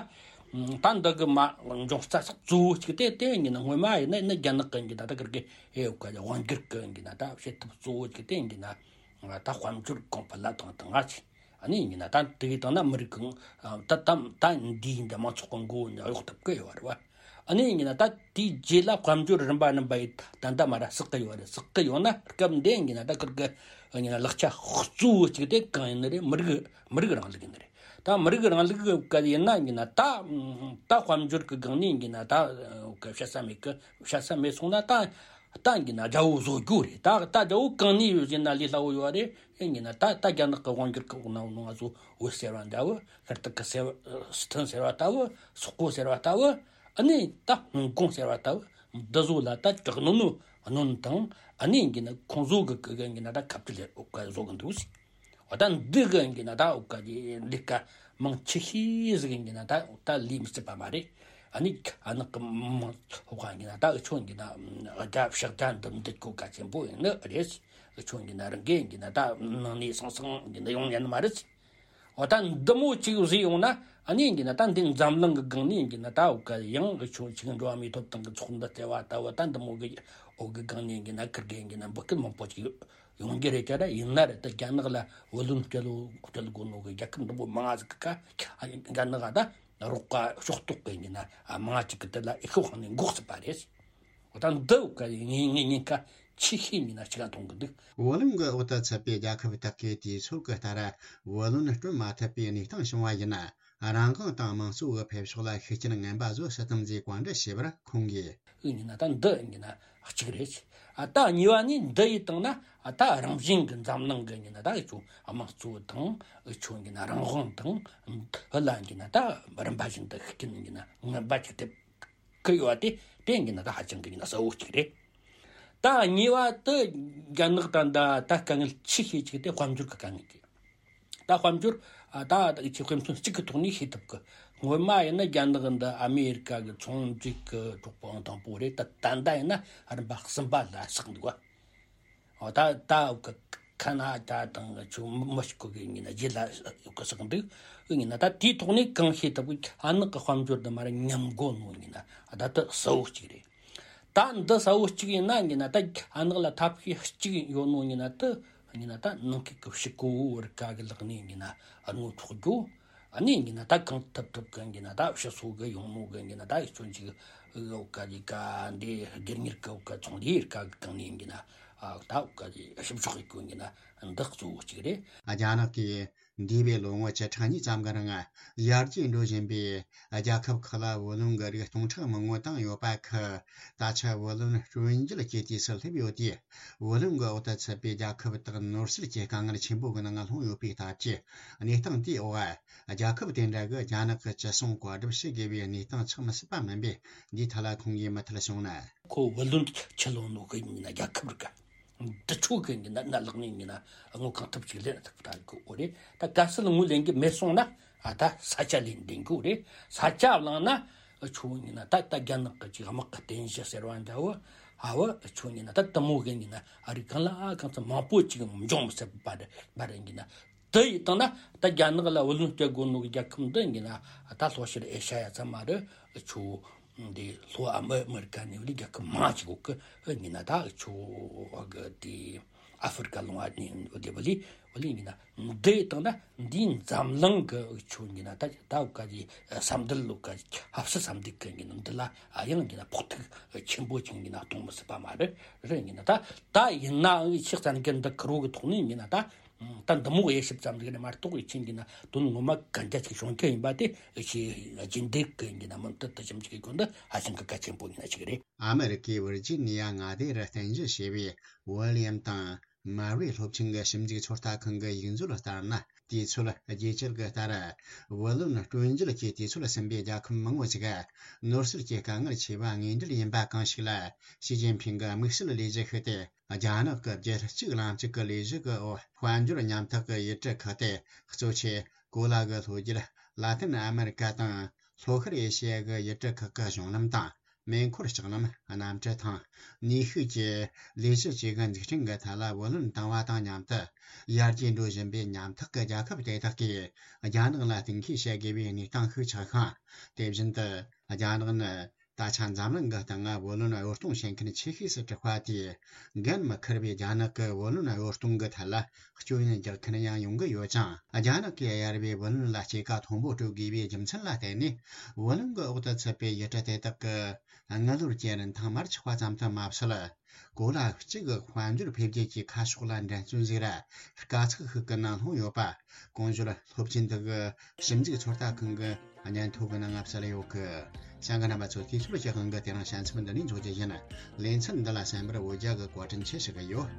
ད་འདི་གི་མ་འབྱུང་རྩ་ས་གཙོ་བོ་ཅིག་དེ་དེ་ཡིན་ན་སྔོན་མ་ཡིན་ན་ཡིན་ན་རྒྱ་ནག་གི་ཡིན་ན་ད་ག་གི་ཨེ་ག་དབང་སྒྱུར་གི་ཡིན་ན་ད་བྱེད་ཐབས་གཙོ་བོ་ཅིག་དེ་ཡིན་ན་ད་དཔལ་འབྱོར་གོང་འཕེལ་ལ་དང་དང་ང་ཅིག་ཨ་ནི་ཡིན་ན་ད་དེ་གི་དང་ན་མི་རིགས་གང་ད་ད་ད་འདི་ཡིན་ད་མང་ཚོགས་གི་མགོ་ནས་གཡོག་ཐུབ་ཀི་ཡོད་རེད་བ། ཨ་ནི་ཡིན་ན་ད་དེའི་རྗེས་ལ་དཔལ་འབྱོར་རིམ་པ་རིམ་པ་ཡིས་ད་ད་མ་ར་བསགས་ཀི་ཡོད་རེད། བསགས་ཀི་ཡོད་ན་སྐབས་འདི་ཡིན་ན་ད་ཁིར་གི་ཡིན་ན་ལག་ཆ་གཙོ་བོ་གཅིག་དེ་གང་ཡིན་ནི་རེད། མི་རིགས་མི་རིགས་རིང་ལུགས་ཡིན་ནི་རེད། ད་མི་རིགས་རིང་ལུགས་གི་ཡིན་ན་ཡིན་ན་ད་ད་དཔལ་འབྱོར་གི་སྒང་ནས་ཡིན་ན་ད་བཤད་ས་མེད་གི། བཤད་ས་མེད་སོང་ན་ད་ད་ཡིན་ན་རྒྱལ་པོ་བཟོ་རྒྱུ་རེད། ད་ད་རྒྱལ་པོ་གང་ནས་ཡོད་ཟེར་ན་ལས་སླ་བོ་ཡོད་རེད། ཡིན་ན་ད་ད་རྒྱ་ནག་གི་དབང་སྒྱུར་གི་འོག་ན་འོ་ནོ་ང་ཚོ་བོད་ཟེར་བ་འདྲ་བོ། ཤར་ཏུར་ཀི་ཟེར་བ། སི་ཐན་ཟེར་བ་ལྟ་བུ། སོག་པོ་ཟེར་བ་ལྟ་བུ། ཨ་ནི་ད་ཧོང་ཀོང་ཟེར་བ་ལྟ་བུ། འདི་ཚོ་ལ་ད་དྲག་གནོན་ནོ་གནོན་དང་། ཨ་ནི་ཡིན་ན་ཁོང་ཚོ་གི་གི་ཡིན་ན་ད་ཁ་བྲལ་འོག་ག་བཟོ་གི་འདུག་ཟེར། འོ་ད་འདི་གི་ཡིན་ན་ད་འོག་ག་ལས་ཀ་མང་ཆེ་ཤོས་ཟིག་ཡིན་ན་ད་ད་ལས་མི་སྲིད་པ་མ་རེད། ཨ་ནི་ཨ་ནག་གི་མང་འོག་ག་ཡིན་ན་ད་འུ་ཆོ་ཡིན་ན་རྒྱ་ཕྱག་རྒྱ་འདི་འདི་གོ་ག་ཆེན་པོ་ཡིན་ནི་རེད། འུ་ཆོ་ཡིན་ན་རང་གི་ཡིན་ན་ད་ནང་ནས་སང་སང་ཡིན་ན་ཡོང་ཉན་མ་རེད། འོ་ད་འདི་མོ་གཅིག་བཟོས་ཡོང་ན་ཨ་ནི་ཡིན་ན་ད་འདི་འཛམ་གླིང་གི་སྒང་ནས་ཡིན་ན་ད་འོག་ག་ཡང་འུ་ཆོ་ཅིག་འགྲོ་བ་མིའི་ཐོབ་ཐང་གི་ཚོགས་འདུ་བརྩེ་བ་ལྟ་བུ་ད་འདི་མོ་གི་འོག་གི་སྒང་ནས་ཡིན་ན་ཁིར་གི་ཡིན་ན་འབོད་སྐུལ་མང་པོ་ཅིག་ཡོང་གི་རེད། ཅ་ར་ཡིན་ན་རེད། ད་རྒྱ་ནག་ལ་བུ་ལོན་སྤྲད་ལོ་སྤྲད་དགོས་ནོ་གི་རྒྱལ་ཁབ་འདི་མོ་མང་ང་ཟིག་གི་ཁ་རྒྱ་ནག་ད་རོགས་པ་ཕྱོགས་གཏོགས་གི་ཡིན་ན་མང་ང་ཅིག་གི་དེ་ལ་ཨི་ཤོ་ཁང་ནས་འགོག་སྲིད་པ་རེད། འོ་ད་འདི་འོག་ག་ངས་ངས་ཉེན་ཁ་ཆེ་ཤོས་ཡིན་ན་ཅི་ག་མཐོང་གི་འདུག་བུ་ལོན་གྱི་འོག་ཏུ་ཚུད་པའི་རྒྱལ་ཁབ་དག་གིས་དུས་ཚོད་ཀྱི་ལྟར་བུ་ལོན་སྤྲོད་མ་ཐུབ་པའི་གནས་སྟངས་བྱུང་བ་ཡིན་ན། རང་དབང་དང་དམངས་གཙོ་གི་འཕེལ་ཕྱོགས་ལ་ཤུགས་རྐྱེན་ངན་པ་བཟོ་སྲིད་དམ་ཞེས་བཀའ་འདྲི་བྱས་པར་ཁོང་གིས། ཨུ་ཡིན་ན་ད་འདི་ཡིན་ན་གཅིག་རེད། ཨ་ད་གཉིས་པ་ནི་འདི་ཡིན་བཏང་ན་ཨ་ད་རང་བཞིན་གྱི་འཛམ་གླིང་གི་ཡིན་ན་ད་ཨུ་ཆོ་དམངས་གཙོ་དང་ཨུ་ཆོ་ཡིན་ན་རང་དབང་དང་འདི་ལ་ཡིན་ན་ད་རིམ་པ་བཞིན་དུ་ཤུགས་རྐྱེན་ཡིན་ན་ངན་པ་ཅིག་ཐེབས་གི་ཡོད་དེ་དེ་ཡིན་ན་ད་ཧ་ཅང་གི་ཡིན་ན་གསལ་བོ་གཅིག་རེད། ད་གཉིས་པ་དེ་རྒྱ་ནག་ད་ད་ད་དཀའ་ངལ་ཆེ་ཤོས་གཅིག་དེ་དཔལ་འབྱོར་གི་དཀའ་ངལ་གྱིས། ད་དཔལ་འབྱོར་ཨ་ད་ད་ཆེ་དཔེ་མཚོན་གཅིག་གི་ཐོག་ནས་ཤེས་ཐུབ་གི། སྔོན་མ་ཡིན་ན་རྒྱ་ནག་འདི་ཨ་མེ་རི་ཀ་གི་ཚོང་འབྲེལ་གི་གྲོགས་པོ་ཨང་དང་པོ་རེད། ད་ད་ལྟ་ཡིན་ན་རིམ་པ་གསུམ་པ་ལ་ཆགས་འདུག་བ། ཨོ་ད་ད་གི་ཁ་ན་ད་དང་ཆུ་མི་ཤི་གོ་གི་ཡིན་ན་རྗེས་ལ་གི་ཆགས་འདུག་ཡིན་ན་ད་དེའི་ཐོག་ནས་གང་ཤེས་ཐུབ་གི། ཨ་ནག་གི་དཔལ་འབྱོར་འདི་མ་ར་ཉམས་གོ་ནོ་ཡིན་ན་ད་ད་གསལ་བོ་གཅིག་རེད། ད་འདི་གསལ་བོ་གཅིག་ཡིན་ན་ཡིན་ན་ད་ཨ་ནག་ལ་ཐབས་ཤེས་གཅིག་ཡོད་ནོ་ཡིན་ན་ད་ཡིན་ན་ད་ནང་ཁུལ་གྱི་ཕྱི་གོ་བོ་རི་ཀ་གི་ལག་ནས་ཡིན་ན་ཨ་ནོ་འཕྲོག་རྒྱུ། ཨ་ནི་ཡིན་ན་ད་གང་ཐུབ་ཐུབ་གི་ཡིན་ན་ད་ཕྱི་སོ་གི་ཡོང་མོ་གི་ཡིན་ན་ད་ཡིག་ཆོན་ཅིག་འོག་ག་ཡི་ག་འདི་སྒེར་གཉེར་གི་འོག་ག་ཚོང་ལས་རིགས་ག་གི་གང་ནས་ཡིན་ན་ཨ་ད་འོག་ག་ཞིབ་འཇུག་ཡིག་གི་ཡིན་ན་འདི་གཙོ་བོ་གཅིག་རེད། རྒྱ་ནག་གིས་འདས་པའི་ལོ་ངོ་བཅུ་ཕྲག་གཉིས་ཙམ་གྱི་རིང་ཡར་རྒྱས་འགྲོ་བཞིན་པའི་རྒྱལ་ཁབ་ཁག་ལ་བུ་ལོན་གྱི་རིགས་སྟོང་ཕྲག་མང་པོ་བཏང་ཡོད་པ་ཁག་ད་ཆ་བུ་ལོན་སྤྲོད་འཇལ་གྱི་དུས་སུ་སླེབས་ཡོད་དུས། བུ་ལོན་གྱི་འོག་ཏུ་ཚུད་པའི་རྒྱལ་ཁབ་དག་ནོར་སྲིད་ཀྱི་དཀའ་ངལ་ཆེན་པོ་གི་ནང་ལྷུང་ཡོད་པའི་སྟབས་ཀྱིས། གནས་སྟངས་དེའི་འོག་རྒྱལ་ཁབ་དེ་འདྲ་གི་རྒྱ་ནག་གི་ཅི་གསུང་བཀའ་སྒྲུབ་བྱེད་དགོས་པའི་གནས་སྟངས་ཆགས་མི་སྲིད་པ་མིན་པས། འདིའི་ཐད་ལ་ཁོང་གིས་མུ་མཐུད་གསུངས་ན། ཁོ་བུ་ལོན་ཆི་ལོན་ནོ་གི་ཡིན་ན་རྒྱལ་ཁབ་རིགས་འདི་ཆོ་གི་ཡིན་ན་ན་ལག་ནས་ཡིན་ན་དངུལ་གང་ཐུབ་ཅིག་ལེན་ཐུབ་ཐག་གི་འོ་རེད། ད་གལ་སྲིད་དངུལ་ལེན་གི་མེད་སོང་ན་ཨ་ད་ས་ཆ་ལེན་བདེ་གི་འོ་རེད། ས་ཆ་བླངས་ན་ཆོ་ཡིན་ན་ད་ད་རྒྱ་ནག་གི་ཅིག་དམག་གི་རྟེན་གཞི་ཟེར་བ་འདྲ་བོ་ཧ་བ་ཆོ་ཡིན་ན་ད་དུ་མོ་གི་ཡིན་ན་ཨ་རིག་གང་ལ་ཨ་གང་ཚ་མང་པོ་ཅིག་འབྱུང་མི་སྲིད་པ་རེད་པ་རེད་ཡིན་ན། དེ་ཡིན་དང་ན་ད་རྒྱ་ནག་ལ་བུ་ལོན་སྤྲད་དགོས་ནོ་གི་རྒྱལ་ཁབ་འདི་ཡིན་ན་ད་ལྷོ་ཤར་ཨེ་ཤ་ཡ་ཚང་མ་རེད། ཆོ་འདི་ལྷོ་ཨ་མི་ཨ་མི་རི་ཀ་ནས་བླི་རྒྱལ་ཁབ་མང་ཅིག་གོ་གི་ཡིན་ན་ད་ཆོ་གི་དེ་ཨ་ཧྥེ་རི་ཀ་ལུང་བ་ནས་བླི་བླི་བླི་ཡིན་ན་འདི་ཡིན་དང་ན་འདིའི་འཛམ་གླིང་གི་ཆོ་ཡིན་ན་ད་ད་ག་གི་ས་མདུན་ལུག་ག་ཧབ་སི་ས་མདུན་གི་ཡིན་ན་འདི་ལ་ཨ་ཡང་ཡིན་ན་ཕོག་ཐུག་ཆེན་པོ་ཅིག་ཡིན་ན་གཏོང་མི་སྲིད་པ་མ་རེད། རེད་ཡིན་ན་ད་ད་ཡིན་ནའང་ཕྱི་གཙང་གི་འདི་ཁུར་བོ་གི་ཐོག་ནས་ཡིན་ན་ད། ད་འདི་མོ་དབྱེ་ཞིབ་ཙམ་ཟིག་ནས་མ་གཏོགས་ཡིན་ཕྱིན་གྱི་ན་དོན་ངོ་མ་གན་རྒྱ་ཆེ་ཤོང་རྒྱུ་ཡིན་པ་དེ་ཞེས་རྒྱུན་ལྡན་གྱི་ཡིན་གྱི་ན་མུ་མཐུད་དུ་ཞིབ་འཇུག་གི་སྐོར་འདི་ཧ་ཅང་གི་གལ་ཆེན་པོ་ཡིན་ན་ཞིག་རེད། ཨ་མི་རི་ཀའི་ཝིར་ཇི་ནི་ཡ་མངའ་སྡེ་རུ་རྟེན་གཞི་བྱས་པའི་ཝི་ལི་ཡམ་དང་མ་རི་སློབ་ཆེན་གྱི་ཞིབ་འཇུག་ཚོད་ལྟ་ཁང་གི་ཡིག་མཛོད་ལྟར་ན། དུས་ཚོད་རྒྱས་བསྐྱར་གྱི་ལྟར། བུ་ལོན་སྤྲོད་འཇལ་གྱི་དུས་ཚོད་ཟིན་པའི་རྒྱལ་ཁབ་མང་པོ་ཞིག་ནོར་སྲིད་ཀྱི་དཀའ་ངལ་ཆེ་བ་དངོས་འབྲེལ་ཡིན་པ་གང་ཞིག་ལ་ཞི་ཅིན་ཕིང་གི་དམིགས་བསལ་ལས་གཞི་ཤིག་སྟེ། རྒྱ་ནག་གི་རྒྱལ་གཅེས་ལམ་གཅིག་གི་ལས་གཞི་གི་འོག་དཔལ་འབྱོར་ཉམ་ཐག་གི་ཡུལ་གྲུ་ཁག་སྟེ། གཙོ་ཆེ་གོ་ལ་གི་ལྷོ་རྒྱུད་ལ་ཏིན་ཨ་མེ་རི་ཀ་དང་། ལྷོ་ཤར་ཨེ་ཤེ་ཡ་གི་ཡུལ་གྲུ་ཁག་གི་གཞུང་ལམ་དང་། མེ་འཁོར་ལྕགས་ལམ། གནམ་གྲུ་དང་། ནུས་ཤུགས་ཀྱི་ལས་གཞི་བཅས་ཀྱི་འཛུགས་སྐྲུན་གྱི་ཐད་ལ་བུ་ལོན་བཏང་བ་དང་མཉམ་དུ། ཡར་རྒྱས་འགྲོ་བཞིན་པའི་ཉམ་ཐག་གི་རྒྱལ་ཁབ་དེ་དག་གིས་རྒྱ་ནག་ལ་གཏན་འཁེལ་བྱ་དགོས་པའི་གནས་སྟངས་ཤིག་ཆགས་ཤིང་། དེ་བཞིན་དུ། རྒྱ་ནག་ནི། ད་ཆ་འཛམ་གླིང་གི་སྟེང་ང་བུ་ལོན་གཡོ་གཏོང་བྱེད་མཁན་ཆེ་ཤོས་སུ་གྲུབ་པ་དེས། འགན་མི་འཁུར་བའི་རྒྱ་ནག་གི་བུ་ལོན་གཡོ་གཏོང་གི་ཐད་ལ་སྐྱོན་ཡོན་རྒྱག་མཁན་ཡང་ཡོང་གི་ཡོད་ཅིང་། རྒྱ་ནག་གིས་གཡར་བའི་བུ་ལོན་ལ་སྐྱེད་ཀ་མཐོན་པོ་སྤྲོད་དགོས་པའི་རྒྱུ་མཚན་ལ་བརྟེན་ནས། བུ་ལོན་གྱི་འོག་ཏུ་ཚུད་པའི་ཡུལ་གྲུ་དེ་དག་གི་དངུལ་ལོར་གྱི་རིན་ཐང་མར་ཆག་པ་ཙམ་དུ་མ་ཟད། གོ་ལ་གཅིག་གི་དཔལ་འབྱོར་འཕེལ་རྒྱས་ཀྱི་ཁ་ཕྱོགས་ལ་འགྲན་རྩོད་ཟིག་ར་དཀའ་ཚེགས་ཤིག་གི་ནང་ལྷུང་ཡོད་པ། གོང་ཞུས་སློབ་ཆེན་དག་གི་ཞིབ་འཇུག་ཚོད་ལྟ་ཁང་གི་སྙན་ཐོ་གི་ནང་ང་གསལ་ཡོད་གི། བྱང་གི་རྣམ་པ་ཚོ་དུས་ཚོད་ཀྱི་དབང་གིས་དེ་རིང་བྱང་ཆུབ་འདི་ནས་འཇོག་རྒྱུ་ཡིན། ལེ་ཚན་འདི་ལ་གསན་པར་འོ་རྒྱལ་གི་བཀའ་དྲིན་ཆེ་ཞུ་གི་ཡོད།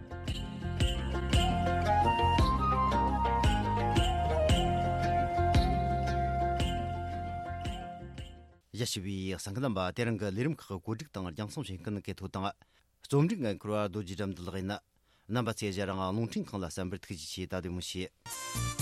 ཡ་ཞུ་བའི་གསན་མཁན་རྣམ་པ། དེ་རིང་གི་ལས་རིམ་ཁག་གི་བཀོད་སྒྲིག་དང་རྒྱང་སྲིང་བྱེད་མཁན་གི་ཐོ་དང་། རྩོམ་སྒྲིག་འགན་འཁུར་བ་རྡོ་རྗེ་དགྲ་འདུལ་ལགས་ཡིན། རྣམ་པ་ཚོས་ང་རང་རླུང་འཕྲིན་ཁང་ལ་གསན་པར་ཐུགས་རྗེ་ཆེ། ད་བདེ་མོ་བྱོས།